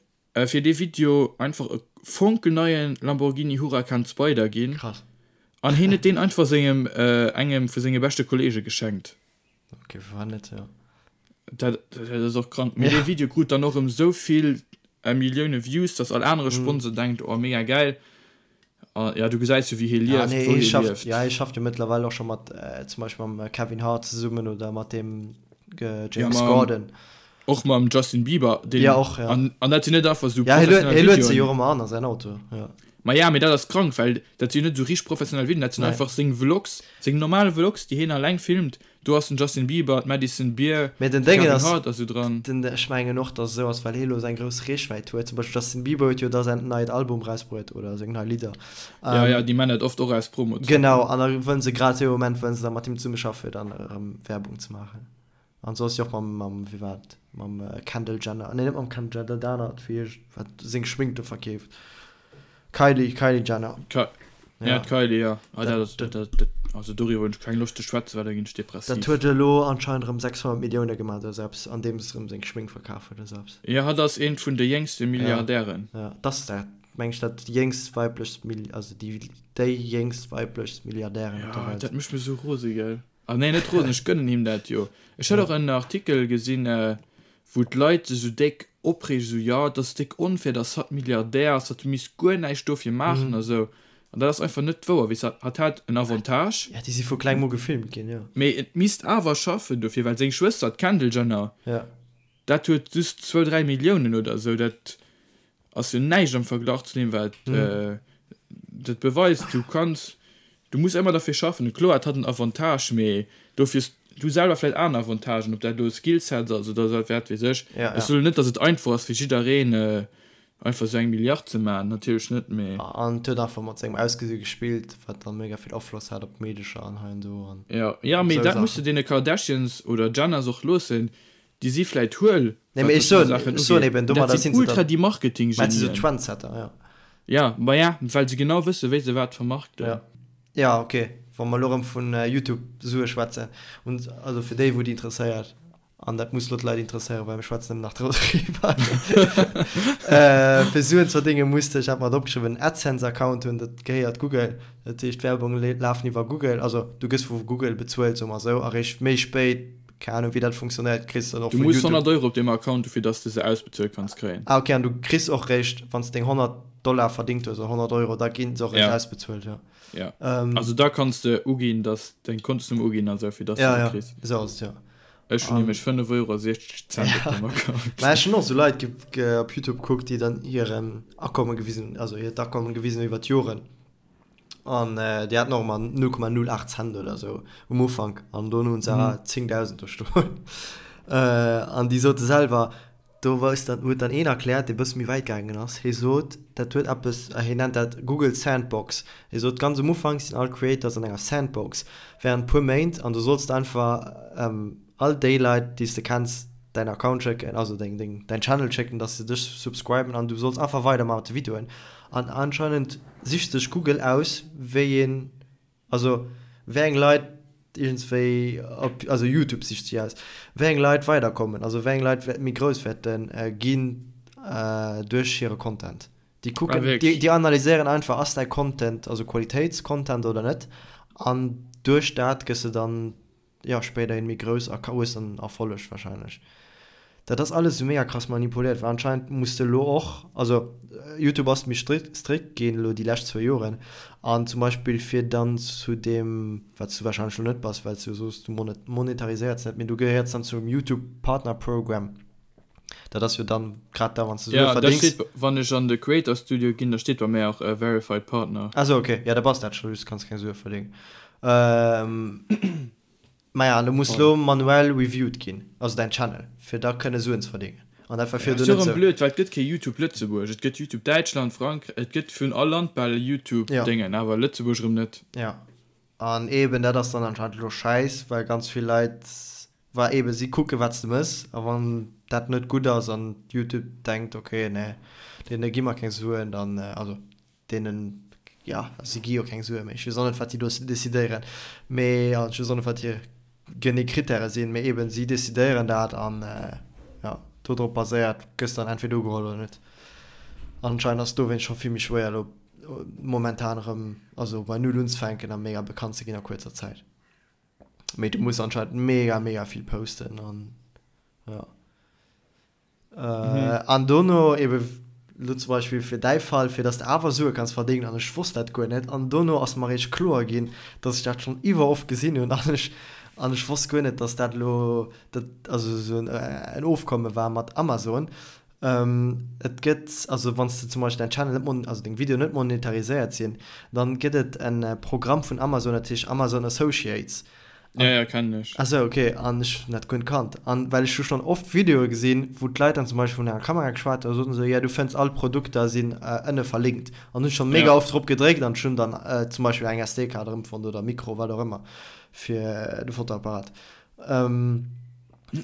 fir dee Video einfach e fonkelneie Lamborghini Huracan Spyder ginn. Krass. An hien huet deen einfach sengem, engem vu senge beschte Kolleege geschenkt. Ok, firwat net, jo. Dat, dat ass och krank. Mee dee Video krut dann och erëm esou vill Millioune Views, dass all anere Sponsor denkt, oh mega gäil. A ja, du gesäis jo wéi hie lieft, ja, nee, wou hie schafft, lieft. Ja, hie schafft jo mëttlerweil och scho mat äh, zum Beispill mam Kevin Hart zesummen oder mat dem äh, James ja, mam, Gordon. Och mam Justin Bieber. Den, ja, och, ja. An, an dat sinn net einfach sou ja, professionell Videoen. Hie luet se jo och ëmmer an a säin Auto. Ja. Ma ja, mee dat ass krank, well dat sinn net sou richteg professionell Videoen, dat sinn einfach seng Vlogs, seng normal Vlogs, déi hien alleng filmt. Do ass den Justin Bieber, d'Madison Beer, Mee den Déngen ass, Hart a sou dran. Den, ech mengen och, dass et esou ass, well hie lo seng grouss Reechwäit huet. Zum Beispill Justin Bieber huet jo da säin neit Album rausbruet oder seng nei Lidder. Ja, ja, déi man dat oft och aus Promo. Genau, an da wëllen se grad dee Moment wëllen se da mat him zesummeschaffen, fir dann erëm Werbung ze maachen. An sou ass si och mam, mam, wéi war et, mam Kendall Jenner, nee net mam Kendall Jenner, dat anert, wéi heescht, wat seng Schmink do verkeeft, Kylie, Kylie Jenner. Ka ja, d'Kylie, ja. Ah, dat ass, dat, dat, also doriwwer hunn ech keng Loscht ze schwätzen, well da ginn ech depressiv. Dat huet elo anscheinend erëm 600 Millioune gemaach oder sou eppes, andeems se erëm seng Schmink verkaf huet oder sou eppes. Jo, hatt ass eent vun de jéngste Milliardären. Ja, ja, dat ass dat, meng ech, dat jéngst weiblechst Mill, also déi, déi jéngst weiblechst Milliardärin op der Welt. Ja, dat mécht mech sou rose, gell. Ah nee, net rosen, ech gönnen him dat jo. Ech hat och en Artikel gesinn, wou d'Leit sech esou déck opreegen, esou, jo, et ass déck onfair, dass hatt Milliardär ass, hatt misst guer näischt dofir maachen a sou. An dat ass einfach net wouer, weess de, hatt hat en Avantage. Ja, déi si vu klengem u gefilmt ginn, jo. Mee et misst awer schaffen dofir, well seng Schwëster, d'Kendall Jenner, dat huet just zwou, dräi Milliounen oder esou, dat ass jo näischt am Verglach zu deem wat dat beweist. Du kanns, du muss ëmmer derfir schaffen. Kloer, et hat en Avantage, mee dofir hues du selwer vläicht aner Avantagen, ob dat elo Skillsets ass oder wat weess ech. Ech soen net, datt et einfach ass fir jiddereen einfach esou eng Milliard ze maachen, natierlech net, mee. An et huet einfach mat sengem Ausgesi gespillt, wat dann mega vill Afloss hat op d'Meedecher an hei an do an Jo, jo, mee dat muss de deene Kardashians oder Jenners och loossen, Déi si vläit huel, Nee, mee ech soen, ech soen eben, domadder sinn se ultra déi Marketing-Genien. Mä si sou Trendsetter, ja. Ja, ma ja, well se genau wësse wéi se wat vermarkten. Ja. Ja, ok, wa mer elo erëm vun YouTube-Sue schwätzen, und also fir déi wou et interesséiert, an dat muss elo d'Leit interesséieren, well mir schwätzen nëmmen nach doriwwer, fir Suen ze verdéngen, muss de, ech hat mer et opgeschriwwen, en AdSense-Account hunn, dat gehéiert Google, dat heescht d'Werbung lafen iwwer Google, also du gëss vu Google bezuelt, soe mer esou, a réischt méi spéit Keng Ahnung wéi dat funktionéiert, kriss dann och Du muss 100 Euro op deem Account hu fir dass de se ausbezuelt kanns kréien. Ah ok, an du kriss och réischt wanns de deng 100 Dollar verdingt hues oder 100 Euro, da ginn se och réischt ausbezuelt, jo. Ja, also da kanns de uginn dass deng Kontosnummer uginn an esou fir dass de se kriss. Ja, ja, esou ass et, jo. Ech hunn nämlech 5 Euro a 60 Cent op deem Account. Mä ech hunn och esou Leit op Youtube kuckt déi dann hiren Akommen gewisen, also hiert Akommen gewisen hunn iwwer d'Joren. An déi haten och ëmmer 0,08 Cent oder sou um Ufank an dono hunn se 10.000 do stoen. An déi sote selwer, do weist dann, huet dann een erkläert, dee bësse méi wäit gaangen ass, hie sot, dat huet eppes, hien nennt dat Google Sandbox. Hie sot, ganz um Ufank sinn all Creators an enger Sandbox während puer Méint an du solls einfach all déi Leit, déi s de kenns, däin Account schécken, also deng, deng, däin Channel schécken, dass se dech subscriben an du solls einfach weidermaachen mat de Videoen. An anscheinend sicht sech Google aus, wéi een, also wéi eng Leit iergendswéi op, also YouTube sicht si aus, wéi eng Leit weiderkommen, also wéi eng Leit méi grouss wäerte ginn duerch hire Content. Déi kucken, déi, déi analyséieren einfach, ass däi Content, also Qualitéitscontent oder net, an duerch dat gëss de dann jo spéiderhin méi grouss a hues dann Erfolleg wahrscheinlech. Dat ass alles esou mega krass manipuléiert, well anscheinend muss de elo och, also Youtube ass méi strikt strikt ginn elo déi lescht zwou Joren an zum Beispill fir dann zu deem, wat s du wahrscheinlech elo net bass, well s du jo soos du monetariséiers net, mee du gehéiers dann zum Youtube Partner Program, dat ass jo dann grad da wann s du Sue Ja, da verdéngs. steet, wann ech an de Creator Studio ginn, da steet bei mär och Verified Partner. Ah sou, ok, ja da bass dat scho, just kanns keng Sue verdéngen. Maja, an du muss lo manuell reviewed ginn, also däin Channel, fir da kënne Suen ze verdéngen. An dat war virdu net esou. Ass jo erëm blöd, well et gëtt kee Youtube Lëtzebuerg, et gëtt Youtube Däitschland, Frankräich, et gëtt vun all Land bal e Youtube Déngen, awer Lëtzebuerg erëm net. Ja, an eben dat ass dann anscheinend elo schäiss, well ganz vill Leit, well eben si kucke wat s de mëss, a wann dat net gutt ass an Youtube denkt, ok, nee, deene gi mer keng Suen, dann, also deenen, jo, si gi jo keng Sue méi, ech weess och net, wat déi do decidéieren, mee, an ech weess och net, wat hir genee Krittäre sinn, mee eeben, si decidéieren dat an, jo, do drop baséiert gëss dann entweder ugeholl oder net. Anscheinend ass et dowéinst scho vill méi schwéier elo momentan erëm, also bei Null unzefänken a mega bekannt ze ginn a kuerzer Zäit. Mee du muss anscheinend mega, mega vill posten an, jo. An dono ebe lo zum Beispill fir däi Fall, fir dass de awer Sue kanns verdéngen, an ech wosst dat guer net, an dono ass mer eréischt kloer ginn, dass ech dat schonn iwwer oft gesinn hunn an ech an ech wosst guer net, dass dat elo dat also esou en Ofkomme war mat Amazon. Et gëtt also wann s de zum Beispill däin Channel net mon also deng Videoen net monetariséiert sinn, dann gëtt et en Programm vun Amazon, dat heescht Amazon Associates. Ja, ja, kennen ech. Ah sou, ok. An ech hunn dat guer net kannt. An well ech hu schonn oft Videoe gesinn, wou d'Leit dann zum Beispill vun enger Kamera geschwat hunn a soten esou, jo du fënns all d'Produkter sinn ënne verlinkt. An hunn ech schonn mega oft drop gedréckt an ech hunn dann zum Beispill eng SD-Kaart erëmfonnt oder e Mikro, wat och ëmmer, fir de Fotoapparat.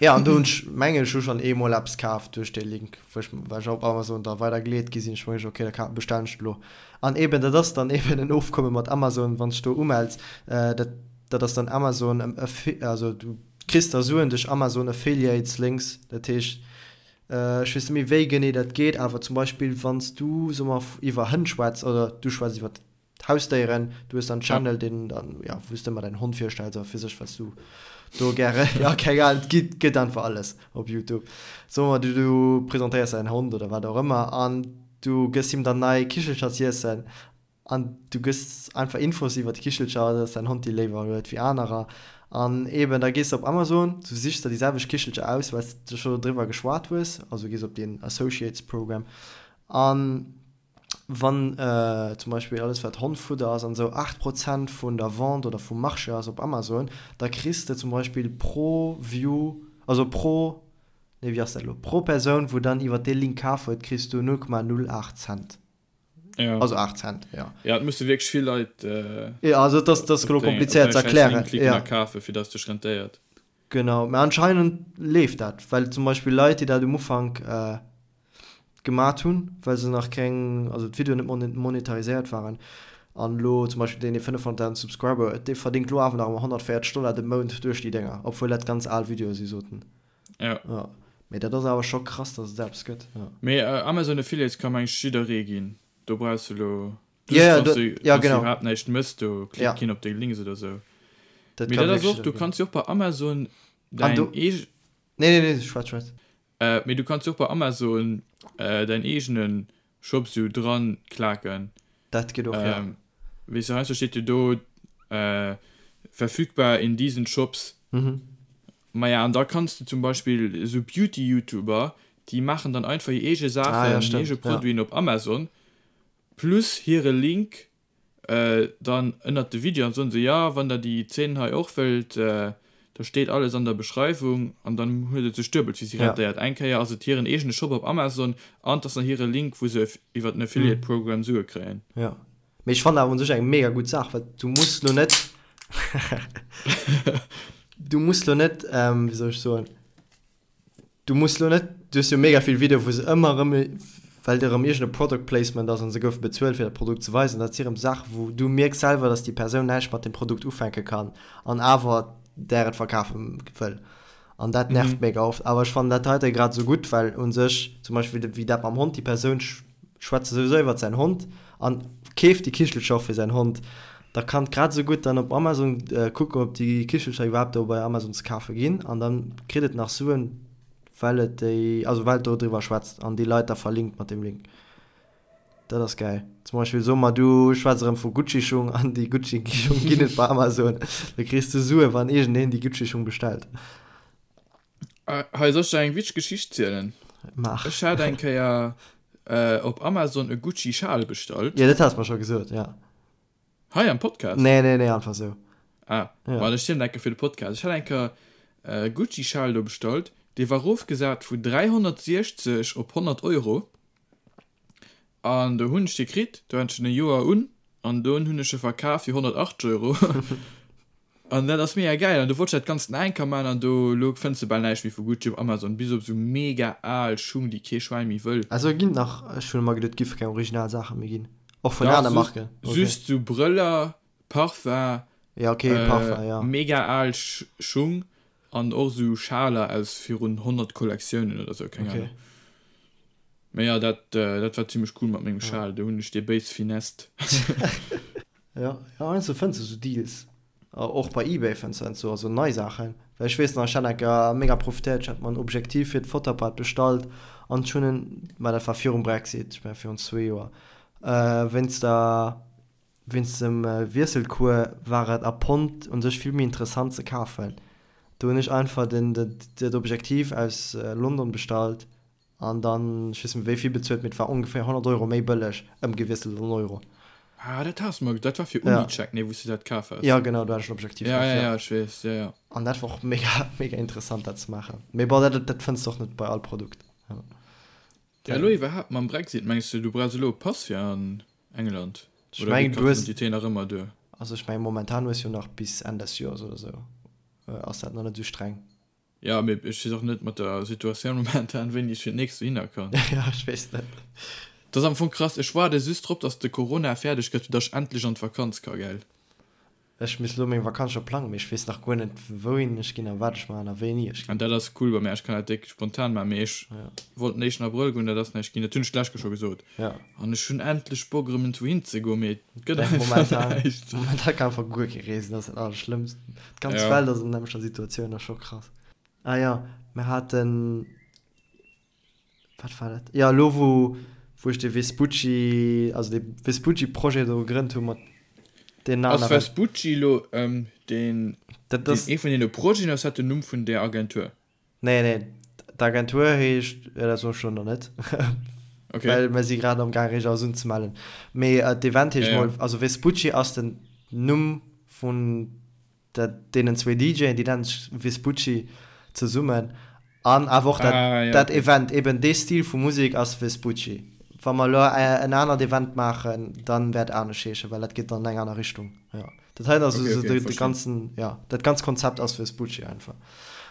Ja, an do hunn ech, mengen ech, hu schonn eemol eppes kaf duerch dee Link, wou ech, well ech op Amazon da weider geleet gi sinn. Ech mengen, okay, da ka, bestellen ech et elo. An eben, dat ass dann eben en Ofkomme mat Amazon, wann s de do umells, dat, dat ass dann Amazon, also du kriss da Suen duerch Amazon Affiliates Links. Dat heescht, ech weess net méi, wéi genee dat geet, awer zum Beispill, wann s du, soe mer, iwwer Hënn schwätz oder du schwätz iwwer Hausdéieren, du hues dann Channel, deen dann, ja, wou s de ëmmer däin Hond virstells a fir sech, wat s du do gäre, ja, keng Ahnung, et gitt, gëtt einfach alles op Youtube. Soe mer, du, du presentéiers däin Hond oder wat och ëmmer an du gëss him dann nei Kichelcher z'iessen an du gëss einfach Infos iwwer d'Kichelcher, dass däin Hond déi léiwer huet wéi anerer an eben da gees de op Amazon, du sichs der déi selwecht Kichelcher aus, well s de scho driwwer geschwat hues, also gees op deen Associates Program an Wann zum Beispill alles wat Hondfudder ass an esou 8 Prozent vun der Vente oder vum Marché ass op Amazon, da kriss de zum Beispill pro View, also pro, nee wéi ass dat elo, pro Persoun wou dann iwwer dee Link kaf huet, kriss du 0,08 Cent. Ja. Also 8 Cent, jo. Ja, et musse wierklech vill Leit Ja, also et ass, dat ass elo komplizéiert ze erklären. Op däi schäiss Link klicken a kafen, fir dass et sech rentéiert. Genau, mä anscheinend leeft dat, well zum Beispill Leit, déi dat um Ufank gemat hunn, well se nach keng, also d'Videoen net monetariséiert waren, an elo zum Beispill deen, dee 500.000 Subscriber huet, dee verdéngt elo awer nach ëmmer 140 Dollar de Mount duerch déi Dénger, obwuel dat ganz al Videoe si sot en. Ja. Ja, mee dat ass awer scho krass, datt et eppes gëtt, ja. Mee Amazon Affiliates ka meng ech jidderee ginn, do brauchs de elo just, ja, wann s du, ja, genau. iwwerhaapt näischt mëss, do klickt ja. keen op deng Links oder sou. Dat mee dat ass och, du kanns jo och bei Amazon däin eege. Nee, nee, nee, schwätz, schwätz. Mee du kanns jo och bei Amazon däin eegene Shop sou dran klaken. Dat geet och, jo. Weess de, heiansdo steet jo do verfügbar in diesen Shops. Maja, an da kanns de zum Beispill esou Beauty-Youtuber, déi maachen dann einfach hir eege Saachen, hir eege Produiten op Amazon plus hire Link Dann ënnert de Video an soen se, jo wann der déi Zeen hei och wëllt, da steet alles an der Beschreiwung an dann huet et sech duebelt fir si rentéiert. Eng Kéier ass et hiren eegene Shop op Amazon an et ass nach hire Link wou se iwwer den Affiliate Program Sue kréien. Jo, mee ech fannen awer un sech eng mega gutt Saach, well du muss lo net, du muss lo net, wéi soll ech soen, Du muss lo net, du hues jo mega vill Videoe wou se ëmmer erëm, well et erëm iergend e Product Placement ass an se goufe bezuelt fir dat Produkt ze weisen, dat si erëm Saache wou du mierks selwer, dass déi Persoun näischt mat deem Produkt ufänke kann an awer där et verkafe wëll an dat nervt mega oft. Awer ech fannen dat heite grad esou gutt, well u sech zum Beispill wéi dat mam Hond, déi Persoun schwätzt souwisou iwwert säin Hond an keeft déi Kichelcher och fir säin Hond, da kann grad esou gutt dann op Amazon kucken, ob déi Kichelcher iwwerhaapt do bei Amazon ze kafe ginn an dann kritt et nach Suen, well et déi, also well et do driwwer schwätzt an déi Leit da verlinkt mat deem Link. Dat ass gäil. Zum Beispill soe mer, du schwätz erëm vu Gucci-Schung an déi Gucci-Schung ginn et bei Amazon, da kriss du Sue wann iergendeen déi Gucci-Schung bestellt. Hei, soll ech der eng witzeg Geschicht zielen? Maach. Ech hat eng Kéier op Amazon e Gucci Schal bestallt. Jo, dat has mer scho gesot, ja. Hei am Podcast? Nee, nee, nee, einfach sou. Ah, ja. Ma ech zielen enke fir de Podcast. Ech hat eng Kéier e Gucci Schal do bestallt, dee war rofgesat vu 360 op 100 Euro. An do hunn ech dee kritt, do hat ech en e Joer un, an dunn hunn ech e verkaf fir 180 Euro. An dat ass mega gäil. An do wollt ech dat Ganzt nach eng Kéier maachen, an do, elo fënns de bal näischt méi vu Gucci op Amazon, bis op esou mega al Schung, déi kee Schwäin méi wëll. Also ginn nach, ech hunn ëmmer geduet, et géife keng original Saache méi ginn, och vun aner Marken. Dach, just esou Brëller, Parfum, Ja, okay, Parfum, ja. mega al Schung an och esou Schaler aus virun 100 Kollektiounen oder esou, keng Ahnung. Mee jo, dat, dat war zimmlech cool mat mengem Schal, do hunn ech dee béis finessed. Jo, jo, heiansdo fënns de sou Deals, och bei eBay fënns de heiansdo also nei Saachen. Well ech weess nach, ech hat eng Kéier mega profitéiert, ech hat mer en Objektiv fir d'Fotoapparat bestallt an ech hunn en, mä dat war virum Brexit, ech mengen virun zwee Joer, wéinst der, wéinst dem Wiesselcours war et a Pond un sech vill méi interessant ze kafen. Do hunn ech einfach den, dat Objektiv aus London bestallt An dann, ech weess net méi wéi vill bezuelt, mee et war ongeféier 100 Euro méi bëlleg ëmgewiesselt an Euro. Ah, dat has de mer, dat war fir Unicheck, nee, wou s de dat kaf has. Jo, genau, do hat ech en Objektiv kaf, ja. Ja, ja, ech weess, ja, ja. An dat war och mega, mega interessant, dat ze maachen. Mee bon, dat, dat fënns de och net bei all Produkt. Ja, elo iwwerhaapt mam Brexit, mengs de, du brauchs elo e Pass fir an England? Ech Oder mengen, geet du hues. D'Identité nach ëmmer duer? Also ech mengen, momentan hues jo nach bis Enn des Joers oder sou, ass dat nach net esou streng. Ja, mee ech weess och net mat der Situatioun momentan, wéini ech fir d'nächst dohinner kann. Ja, ech weess net. Dat ass am Fong krass. Ech waarde just drop, dass de Corona fäerdeg gëtt, fir dass ech endlech an d'Vakanz ka, gell? Ech misst elo meng Vakanz scho plangen, mee ech weess nach guer net, wouhin ech ginn a wat ech maachen a wéini ech ginn. An dat ass cool bei mär, ech kann dat déck spontan maachen, mee ech wollt den éischten Abrëll goen, dat ass näischt ginn, dat hunn ech d'lescht Kéier scho gesot. An ech hunn endlech Bock erëm iergendwou hinzegoen, mee et gëtt einfach näischt. Momentan kann einfach guer kee reesen, dat ass dat Allerschlëmmst. D'ganz Welt ass an der nämmlechter Situatioun, dat ass scho krass. Ah jo, mir haten. Wat war dat? Jo, elo wou, wou ech de Vespucci, also de Vespucci-Projet do gegrënnt hu mat deenen Ass aneren. Vespucci elo deen, Dat deen ass. ee vun deene Projeten, ass dat den Numm vun där Agentur? Nee, nee, d'Agentur heescht, jo dat soen ech elo nach net, Okay. well mer si grad am gaang eréischt alles unzemellen. Mee d'Event heescht Ja, ja. mol, also Vespucci ass den Numm vun Dat deenen zwee DJen, déi nennen sech Vespucci zesummen an awer och dat ah, ja, dat okay. Event, eben dee Stil vu Musek ass Vespucci. Wa mer elo en anert Event maachen, dann wäert anescht heeschen, well dat geet dann an eng aner Richtung. Ja. Dat heiten ass okay, okay, de, de ganzen, ja, dat ganz Konzept ass Vespucci einfach.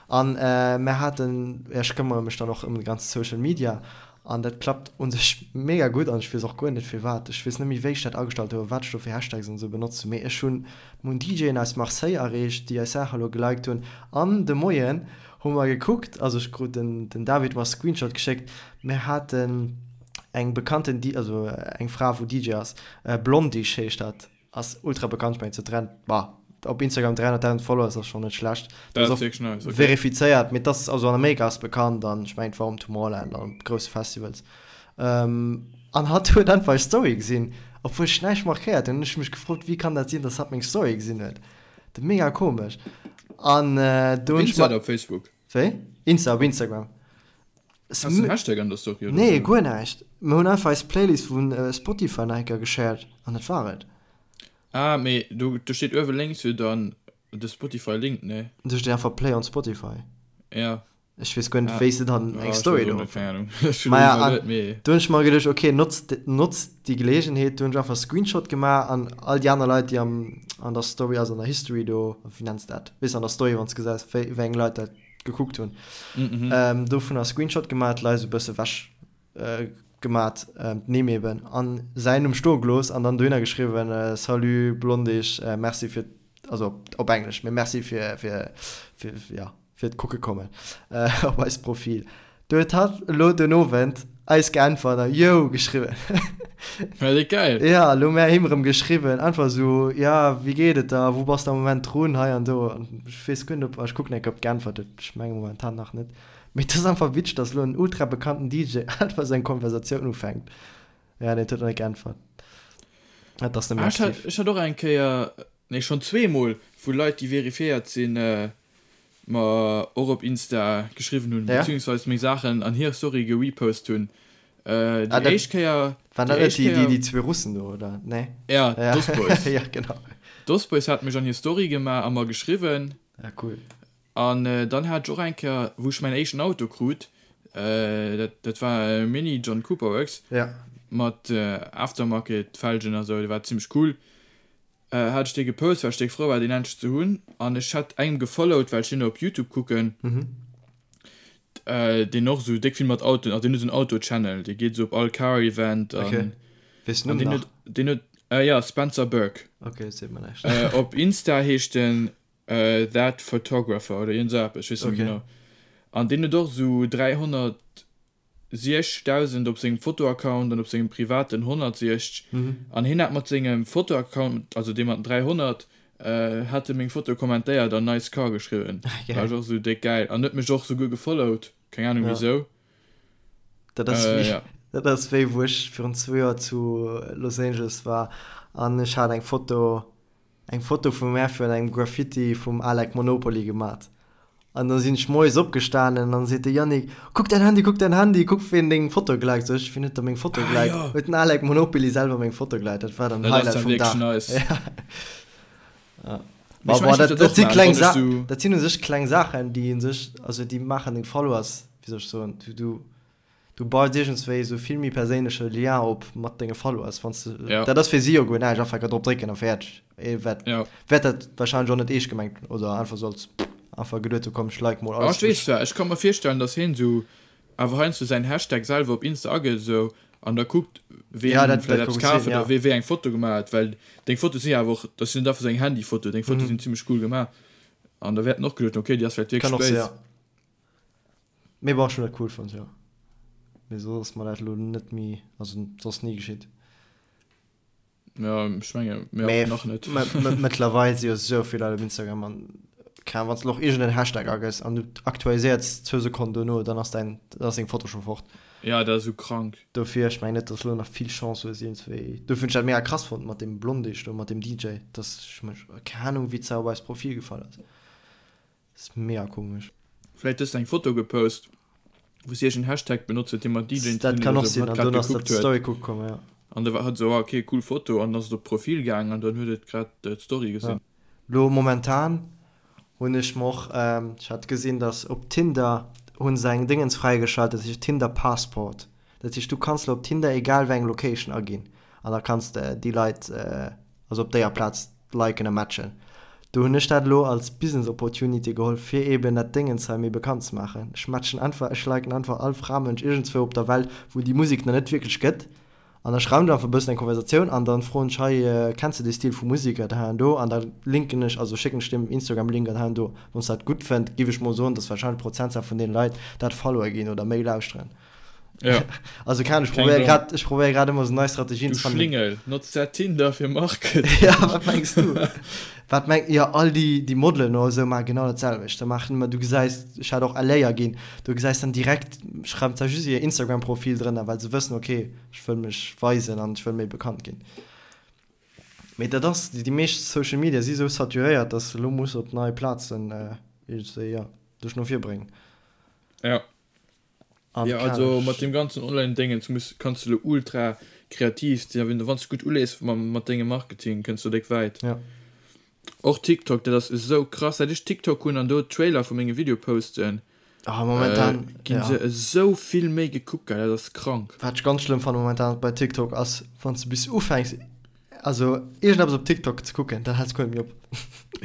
An äh, mer haten, ja, ech këmmere mech dann och ëm de ganze Social Media An dat klappt un sech mega gutt an ech weess och guer net firwat. Ech weess net méi wéi ech dat agestallt hu a wat ech do fir Hashtags an esou benotzt hunn, mee ech hunn mir hunn DJen aus Marseille erreecht, déi eis Saache elo geliked hunn. An de Moien hu mer gekuckt, also ech krut den den David mer Screenshot geschéckt, mir haten eng bekannten D also eng Fra wou DJ ass, Blondish heescht dat, Ass ultra bekannt, ech mengen zu 3, bah, op Instagram 300.000 Followers ass schon net schlecht. Dat ass och nice, okay. verifizéiert, mee das also an Amerika ass bekannt an ech mengen war um Tomorrowland an op grousse Festivals. Ähm, an hatt huet einfach eis Story gesinn, obwuel ech näischt markéiert hunn. Hunn ech mech gefrot, wéi kann dat sinn, dass hatt meng Story gesinn huet. Dat mega komesch. An äh, do hunn ech Insta oder op Facebook? Wéi? Insta, op Instagram. Has du en Hashtag an der Story oder Nee, guer näischt. Mir hunn einfach eis Playlist vu Spotify nach eng Kéier geshared an dat war et. Ah, mee do, do steet uewe lénks jo dann de Spotify-Link, nee? Do steet einfach Play on Spotify. Ja. Ech weess guer net, wéi s de dann eng Story do. Keng Ahnung. Ech hunn Maja, an mee. Do hunn ech mer geduecht, okay, notz, notz déi Geleegenheet. Do hunn ech einfach Screenshot gemaach an all déi aner Leit, déi am, an der Story, also an der History do, wéi nenns de dat? Weess an der Story, wann s de gesäis, wéi, wéi eng Leit dat gekuckt hunn. Mm -hmm. ähm, dovunner Screenshot gemat, d'Leit esou bësse wech äh, gemat, ähm, d'Nimm eben, an säin Numm stoe gelooss an dann dohinner geschriwwen, äh, Salut Blondish, äh, merci fir, also op, op Englesch, mee merci fir, fir, fir, ja, fir d'Kucke kommen äh, op eist Profil. Do huet hatt elo den Owend eis geäntwert a Yo geschriwwen. Well déi geil. Ja, elo mär him erëm geschriwwen, einfach esou, ja, wéi geet et der, wou bass de am Moment drun, hei an do. An ech weess guer net, ob, ech kucken eng Kéier, ob geäntwert huet, ech menge momentan nach net. Mee et ass einfach witzeg, dass elo en ultra bekannten DJ einfach esou eng Konversatioun ufänkt. Ja, nee, et huet nach net geäntwert. Et ass net méi aktiv. Ech hat, ech hat och eng Kéier, nee, schonn zweemol, vu Leit, déi verifiéiert sinn, mer och op Insta geschriwwen hunn, ja. beziehungsweise meng Saachen an hir Story gerepost hunn. Äh, déi ah, éischt Kéier. Waren dat net déi, déi, déi zwee Russen do, oder? Nee. Ja, ja. Dos Boys. ja, genau. Dos Boys hat mech an hir Story gemaach a mer geschriwwen. Ja, cool. An äh, dann hat ech och eng Kéier, wou ech mäin éischten Auto krut, äh, dat, dat war e Mini John Cooper Works. Ja. Mat äh, Aftermarket Felgen a sou, dee war zimmlech cool. Hat ech dee gepost, well ech déck frou war deen endlech ze hunn an ech hat engem gefollowt, well ech deen op Youtube kucken, deen och esou déck vill mat Autoen, also deen huet esou en Auto-Channel, dee geet esou op all Car-Event an Okay. Weess den Numm nach? Deen huet, jo, Spencer Burke. Okay, dat seet mer näischt. Op Insta heescht en That Photographer oder iergend esou eppes, ech weess net méi genau. An deen huet och esou 300 60.000 op sengem Fotoaccount an op sengem privaten 160 an hien hat mat sengem Fotoaccount, also dee mat den 300, hat e meng Foto kommentéiert an nice car geschriwwen. War ech och esou déck gäil an huet mech och souguer gefollowt, keng Ahnung wisou. Dat ass wéi, dat ass wéi wou ech virun zwou Joer zu Los Angeles war an ech hat eng Foto, eng Foto vum mär virun engem Graffiti vum Alec Monopoly gemat. An da sinn ech moies opgestanen an seet de Yannick, Kuck däin Handy, kuck däin Handy, kuck ween deng Foto geliked. Sot ech, Wien huet da meng Foto geliked? Ah, jo. Huet den Alec Monopoly selwer meng Foto geliked. Dat war dann den Highlight vum Dag. Nice. Ja. Ja. Ma bon, dat, dat si kleng Sa dat sinn u sech kleng Saachen, déi u sech, also déi maachen deng Followers, wéi soll ech soen, du, du, Du baus iergendswéi esou vill méi perséinleche Lien op mat denge Followers, wann s de, Ja. dat ass fir si jo guer näischt, einfach enker drop drécken a fäerdeg. Ee wäert, Ja. wäert dat warscheinlech och net eescht gemengt hunn oder einfach sou als. Einfach geduet hu komm ech like mol Ah, alles ech weess wou ech. zwar, ech ka mer virstellen, dass hien esou awer heiansdo säin Hashtag selwer op Insta agëtt esou an da kuckt, Ja, ween dat, dat vläicht ka eppes gutt kaf sinn, huet oder ja. wee wéi eng Foto gemaach huet, well deng Fotoe sinn jo awer och, dat sinn net einfach esou eng Handyfoto, deng Fotoe sinn zimmlech cool gemaach an da wäert en och geduet hunn, okay, déi ass vläicht Kann wierklech och sinn, béis. ja. Mee bon, ech hunn dat cool fonnt, jo. Mee soss ass mer dat elo net méi, also soss ni geschitt. Ja, ech menge mir Mee och nach net. mëttlerweil si jo sou vill Leit op Instagram an keng Ahnung, wann s de och iergend en Hashtag agëss an du aktualiséiers zwou Sekonnen dono, dann ass däin, dann ass deng Foto scho fort. Ja, dat ass esou krank. Dofir, ech mengen net, dass elo nach vill Chance hues iergendswéi. Dofir hunn ech dat mega krass fonnt mat deem Blondisch do, mat deem DJ, dass ech mech, keng Ahnung, wéi s op eist Profil gefall ass. Ass mega komesch. Vläit hues de eng Foto gepost, wou s iergend Hashtag benotzt huet, dee mat DJen ze Dat dinn kann huet och oder sou, sinn, wou an hatt grad dunn ass dat gekuckt huet. d'Story kucke komm, ja. An da war hatt sou, ah ok, cool Foto, an dann ass et op d'Profil gaang an dann huet et grad d'Story Ja. gesinn. Lo momentan hunn ech mer och, ech hat gesinn, dass op Tinder hu se eng Déngens fräigeschalt, dat heescht Tinder Passport. Dat heescht, du kanns lo op Tinder egal wéi eng Location aginn an da kanns de déi Leit, also op déier Plaz liken a matchen. Do hunn ech dat elo als Business Opportunity geholl fir eben dat Déngens hei méi bekannt ze maachen. Ech matchen einfach, ech liken einfach all Framënsch iergendzwou op der Welt wou déi Musek nach net wierklech gëtt an da schreiwen ech einfach e bëssen eng Konversatioun an dann froen ech hei kenns de dee Stil vu Musek an hei an do an da linken ech, also schécken ech deem Instagram Link an hei an do. Wann s dat gutt fënnt giff ech mol soen dass wahrscheinlech Prozentzahl vun deene Leit dat followe ginn oder méi lauschteren. Ja. Also kann ich Keng probiere Ahnung. grad, ich probiere grad immer so nei Strategien Du zu fannen. Schlingel, notz dat Tinder fir Marketing. Ja, wat mengs du? Wat meng, ja, all déi, déi Modelen oder sou maachen genau dat selwecht. Da maachen ëmmer, du gesäis, ech hat och LA aginn, du gesäis dann direkt, schreiwen zwar just hir Instagram-Profil drënner, well se wëssen, okay, ech wëll mech weisen an ech wëll méi bekannt ginn. Mee dat ass, déi meescht Social Media si sou saturéiert, dass de lo muss op nei Plazen iergendwéi, ja, dech no vir bréngen. Ja. An Ja, kal. also mat deem ganzen Online-Déngens muss, kanns de lo ultra kreativ sinn, a wann s de gutt ulees mam, mat dengem Marketing, kënns du déck wäit. Ja. Och TikTok, dat ass esou krass, säit ech TikTok hunn an do Trailer vu menge Video posten, Ah, momentan, ginn ja. se esou vill méi gekuckt, gell, dat ass krank. Wat ech ganz schlëmm fannen momentan bei TikTok ass, wann s de bis ufänks, also iergendeppes op TikTok ze kucken, dann häls guer net méi op.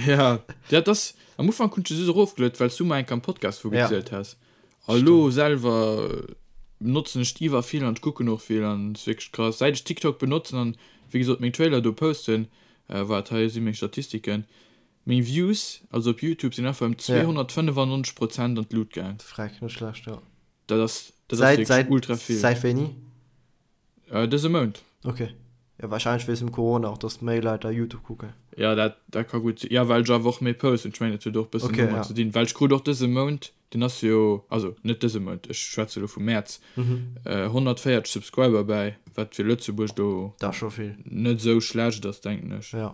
Ja, dat ass, am Ufank hunn ech se just erofgeluet, well s du mer eng Kéier am Podcast vu Ja. gezielt has. A lo selwer benotzen ech iwwer vill an ech kucken och vill an et ass wierklech krass. Säit ech TikTok benotzen an wéi gesot meng Trailer do posten, waart hei si meng Statistiken, meng Views also op Youtube sinn einfach ëm 295 Prozent an d'Lut gaang. Freck, net schlecht, jo. Dat ass dat ass wierklech ultra vill. Säit wéini? Dëse Mount. Ok. Jo, wahrscheinlech wéinst dem Corona och, dass méi Leit da Youtube kucken. Jo, dat dat ka gutt sinn. Jo, well ech awer och méi posten. Ech mengen, dat huet och e bëssen Ok, domat ja. ze dinn. Well ech krut och dëse Mount, deen ass jo, also net dëse Mount, ech schwätze elo vum Mäerz, 140 Subscriber bäi, wat fir Lëtzebuerg do Dat ass scho vill. net esou schlecht ass, denken ech. Jo.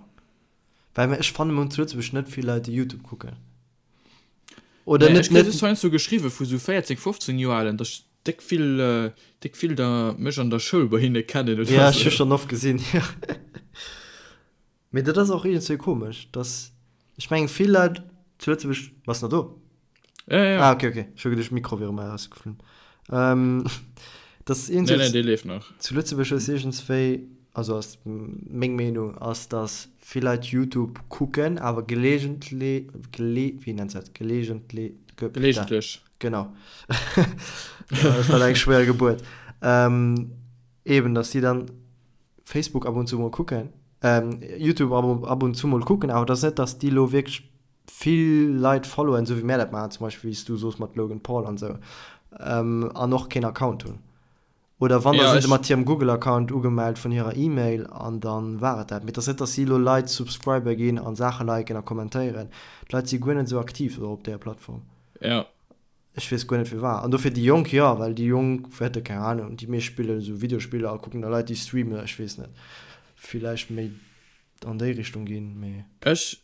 Well ech fannen mol zu Lëtzebuerg net vill Leit, déi Youtube kucken. Oder Nee, net, ech kréie net. just heiansdo geschriwwe vu sou 14, 15 Joer Alen, dass Déck vill, déck vill der mech an der Schoul bei hinne kennen oder Ja, ech hu sou. schonn oft gesinn, jo. Mee dat ass och iergendzwéi komesch, dass, ech mengen vill Leit zu Lëtzebuerg, bass nach do? Ja, ja. Ah, okay, okay, ech hu geduecht Mikro wier erëm erausgeflunn. Ähm, dass Nee, nee, iergendzwéi dee leeft nach. zu Lëtzebuerg hues iergendzwéi, also ass meng Meenung, ass dass vill Leit Youtube kucken, awer gelegentle, gele, wéi nennt se dat, gelegentle, ge, Gelegentlech. Genau. Dat war eng schwéier Gebuert. Ähm, eben, dass si dann Facebook ab und zu mol kucken, ähm, YouTube ab, ab und zu mol kucken, awer dass net, dass déi lo wierklech vill Leit followen, esou wéi mär dat maachen, zum Beispill wéi s du soos mat Logan Paul an esou, ähm, an och keen Account hunn. Oder wann, da Ja, sinn se ech. mat hirem Google-Account ugemellt vun hirer E-Mail an dann war et dat. Mee et ass net, dass si elo Leit Subscriber ginn an Saache liken a kommentéieren. D'Leit si guer net esou aktiv elo op där Plattform. Ja. Ech weess guer net firwat. An dofir déi Jonk, jo, well déi Jonk wäerte, keng Ahnung, déi meescht spillen esou Videospiller a kucken da Leit déi streamen, ech weess net, villäicht méi an déi Richtung ginn, mee. Ech,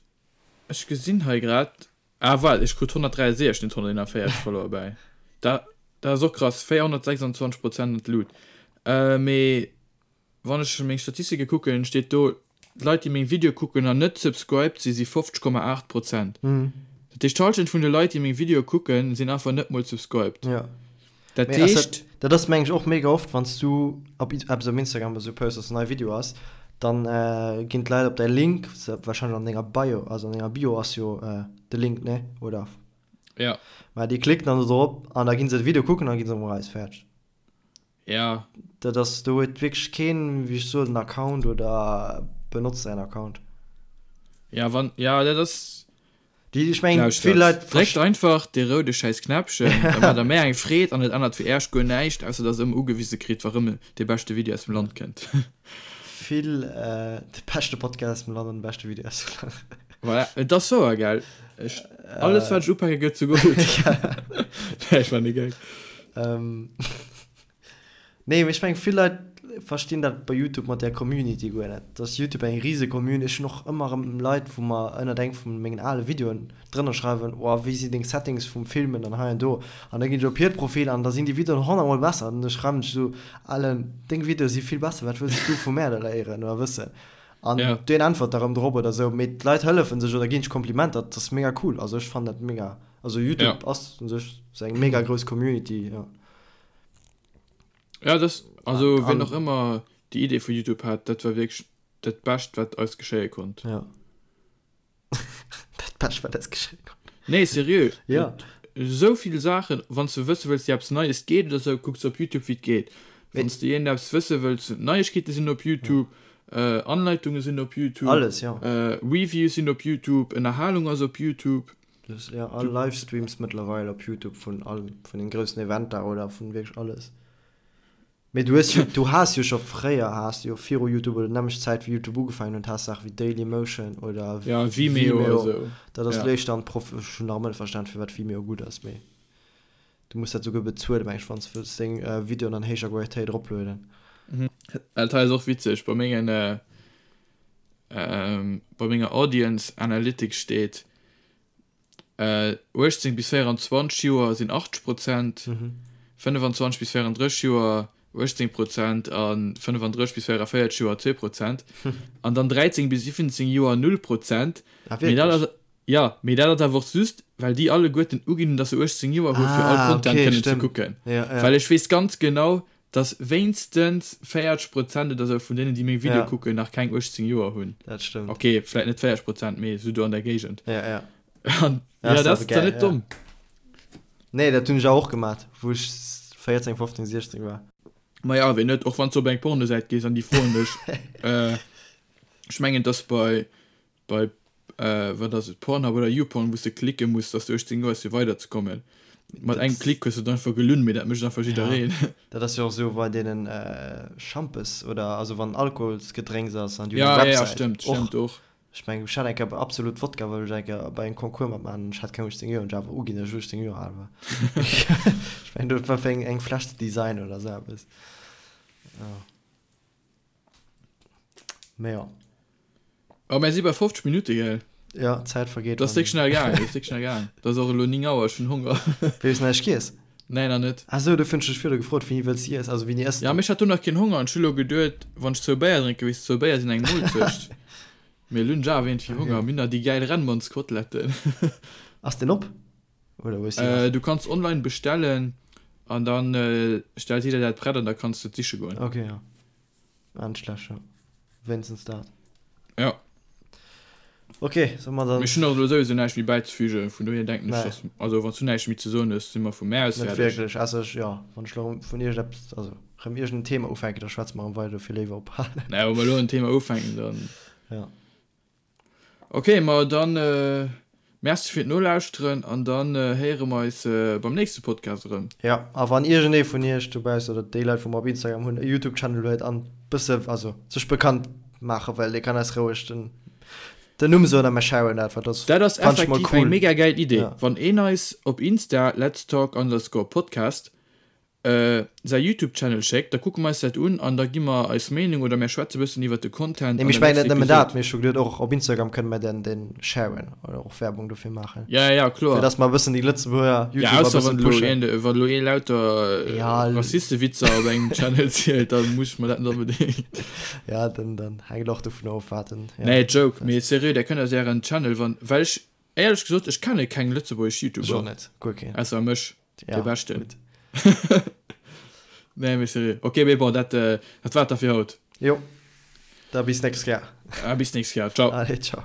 ech gesinn hei grad, Ah waart, ech krut 163, net 141 Follower bäi. Dat dat ass och krass, 426 Prozent an d'Lut. Mee wann ech meng Statistike kucken, steet do, d'Leit déi meng Videoe kucken an net subscribed si, si 50,8 Prozent. Dat heescht d'Hallschent vun de Leit déi meng Videoe kucken, sinn einfach net mol subscribed. Jo. Dat Mee ass dat, heescht. dat ass meng ech och mega oft, wann s du op eppes op Instagram oder sou posts, dass en neie Video ass, dann ginn d'Leit op däi Link, wahrscheinlech an denger Bio, also an denger Bio ass jo de Link, ne? Oder? Ja. Mä déi klicken dann do drop an da ginn se de Video kucken an da gi se erëm eraus. Fäerdeg. Ja. Dat ass, do huet wierklech keen, wéi ech soen, en Account oder benotzt säin Account. Ja, wann, ja, dat ass. Déi, ech mengen, vill Leit. Dréckt einfach dee roude schäiss Knäppchen, da maacht der méi eng Freed an et ännert fir Äerch guer näischt, ausser dass der ëmmer ugewise kritt, wa rëm dee beschte Video aus dem Land kënnt. Vill, de beschte Podcast aus dem Land an de beschte Video aus dem Land. Voilà, et ass wouer, gell? Ech, alles wat ech upake gëtt zu Gold. Nee, ech man e Gag. Nee, mee ech mengen, vill Leit verstinn dat bei Youtube mat där Community guer net. Dass Youtube eng rise Community, ech hunn och ëmmer erëm Leit, wou mer ënnert engem vu mengen ale Videoen drënner schreiwen, oh wéi sinn deng Settings vum Filmen an hei an do. An da ginn ech op hiert Profil an da sinn déi Videoen honnertmol besser. An da schreiwen ech esou, Alen, deng Videoe si vill besser, wat wëlls du vu mär da léieren oder wëssen? An Ja. deen äntwert da rëm drop oder sou. Mee d'Leit hëllefen sech oder ginn sech Komplimenter, dat ass mega cool. Also ech fannen dat mega. Also YouTube Ja. ass u sech sou eng mega grouss Community, jo. Ja, das, also An, wien och an, ëmmer déi Idee vu YouTube hat, dat war wierklech dat Bescht, wat eis geschéie konnt. ja. Dat Bescht, wat eis geschéie konnt. Nee, seriö. Ja. Esou vill Saachen, wann s de wësse wëlls, wéi eppes Neies geet oder sou, kucks op YouTube, wéi et geet. Mee Wann s de iergendeppes wësse wëlls, Neiegkeete sinn op ja. YouTube, Anleitunge sinn op YouTube, Alles, ja. Reviews sinn op YouTube, Ënnerhalung ass op YouTube. Dus, ja, all Livestreams mëttlerweil op YouTube vun all, vun den groussen Eventer oder vun wierklech alles. Mee du hues jo, du has jo scho fréier, has du jo viru YouTube oder nämmlecht Zäit wéi YouTube ugefaangen huet, has Saache wéi Dailymotion oder Ja, Vimeo Vimeo. esou. Dat ass Ja. léischter an Prof, ech hunn nach ëmmer net verstan firwat Vimeo gutt ass, mee du muss dat souguer bezuelen, meng ech, wann s de wëlls deng Videoen an héijer Qualitéit eroplueden. Dat hei ass och witzeg, bei mengen, bei menger Audience Analytics steet, 18 bis 24 Joer sinn 80 Prozent, 25 bis 34 Joer 18 Prozent a 35 bis 44 Joer 2 Prozent an dann 13 bis 17 Joer 0 Prozent. Ah, Mee dat wierklech? ass, jo, mee dat ass awer och just, well déi alleguerten uginn hunn, dass se 18 Joer hu fir all Ah, Content okay, kënnen ze stëmmt. kucken. Ja, ja. Well ech weess ganz genau, Dass wéinstens 40 Prozent oder sou vun deenen, déi meng Videoe Ja. kucken, nach keng 18 Joer hunn. Dat stëmmt. Ok, vläit net 40 Prozent, mee sou do an der Géigend. Ja, ja. An Ja, ja, ass dat awer ass dann gäil, net ja. domm. Nee, dat hunn ech awer och gemat, wou ech 14, 15, 16 war. Ma ja, wéi net? Och wann s du op eng Pornosäit gees an déi froen dech, ech mengen, et ass bei Bei, wat ass et, Pornhub oder YouPorn, wou s de klicke muss, dass du 18 Joer hues fir weider ze kommen. Mat engem Klick hues du et einfach gelunn, mee dat mécht einfach jiddereen. Ja, dat ass jo och esou bei deenen Schampes oder also wann Alkoholsgedrénks ass an déi hunn eng Ja, ja, Websäit. stëmmt, Och, stëmmt och. ech mengen, ech hat eng Kéier bei Absolut Wodka wollt ech eng Kéier bei engem Concours matmaachen an ech hat keng 18 Joer an ech awer uginn, dass ech 18 Joer al war. Ech mengen, dat war fir eng eng Fläsch ze designen oder esou eppes. Ja. Mee jo. Oh, mir si bei 50 Minutte, gell? Ja, d'Zäit vergeet. Dat ass déck schnell gaangen, dat ass déck schnell gaangen. Dat ass och elo 9 Auer, ech hunn Honger. Wéi hues du näischt giess? Nee, nach net. Ah sou, dofir hunn ech dech virdu gefrot, wéini wëlls de iess, also wéini ëss Ja, du? mee ech hat do nach keen Honger an ech hu elo geduet, wann ech zwou Béier drénken, weess de, zwou Béier sinn eng Moolzecht. Mee elo hunn ech awer iergendwéi Honger. Okay. Mir hunn nach déi gäil Rennmannskoteletten. Ass deen op? Oder hues du nach? Du kanns online bestellen an dann stellt si der dat prett an da kanns de et siche goen. Okay, ja. Ah, net schlecht, ja. Wéinstens dat. Ja. Okay, solle mer dann. Ech hunn och elo souwisou näischt méi bäizefügen, vun dohier denken ech, Nee. dass, also wann s du näischt méi ze soen hues, si mer vu mär aus Net fäerdeg. wierklech, ausser ech, jo, wann ech elo vun iergendeppes, also rëm iergendeen Thema ufänken, da schwätze mer erëm weider, dofir léiwer ophalen. Nee, wa mer elo en Thema ufänken, dann. Ja. Ok, ma dann Merci fir d'Nolauschteren an dann héiere mer eis beim nächste Podcast erëm. Jo, a wann iergendee vun iech dobaussen oder déi Leit wou mer op Instagram hunn e Youtube Channel huet an bësse also sech bekannt maache well, dee kann eis roueg den den Numm soen a mer sharen dat, well dat Dat ass fannt ech mol effektiv eng cool. mega gäil Idee. Ja. Wann een eis op Insta letstalk underscore podcast säi Youtube Channel schéckt, da kucke mer eis dat un an da gi mer eis Meenung oder mär schwätze bëssen iwwert de Content Nee, an mee ech der mengen net nächster nëmmen dat, Episode. mee ech hu geduet och op Instagram kënne mer den den sharen oder och Werbung dofir maachen. Ja, ja, kloer. Fir dass mer e bëssen déi Lëtzebuerger Ja, YouTuber e ausser bëssen wann elo pushen. een, wann elo ee lauter Ja, Rassistewitzer op engem Channel zielt, da muss ech mer dat net onbedéngt. Ja, dann dann hänkt och dovun of wat en, ja. Nee, Joke, mee seriö, där kënnt eis ären Channel, wann, well ech, éierlech gesot, ech kenne keng lëtzebuergesch Ech och YouTuber, net, guer keen. ausser mech. Ja, De beschten. Gut. Nee, mee seriö. Ok, mee bon, dat, äh, dat war et da fir haut. Jo. Da bis nächst Kéier. Ah, bis nächst Kéier. Ciao. Allez, ciao.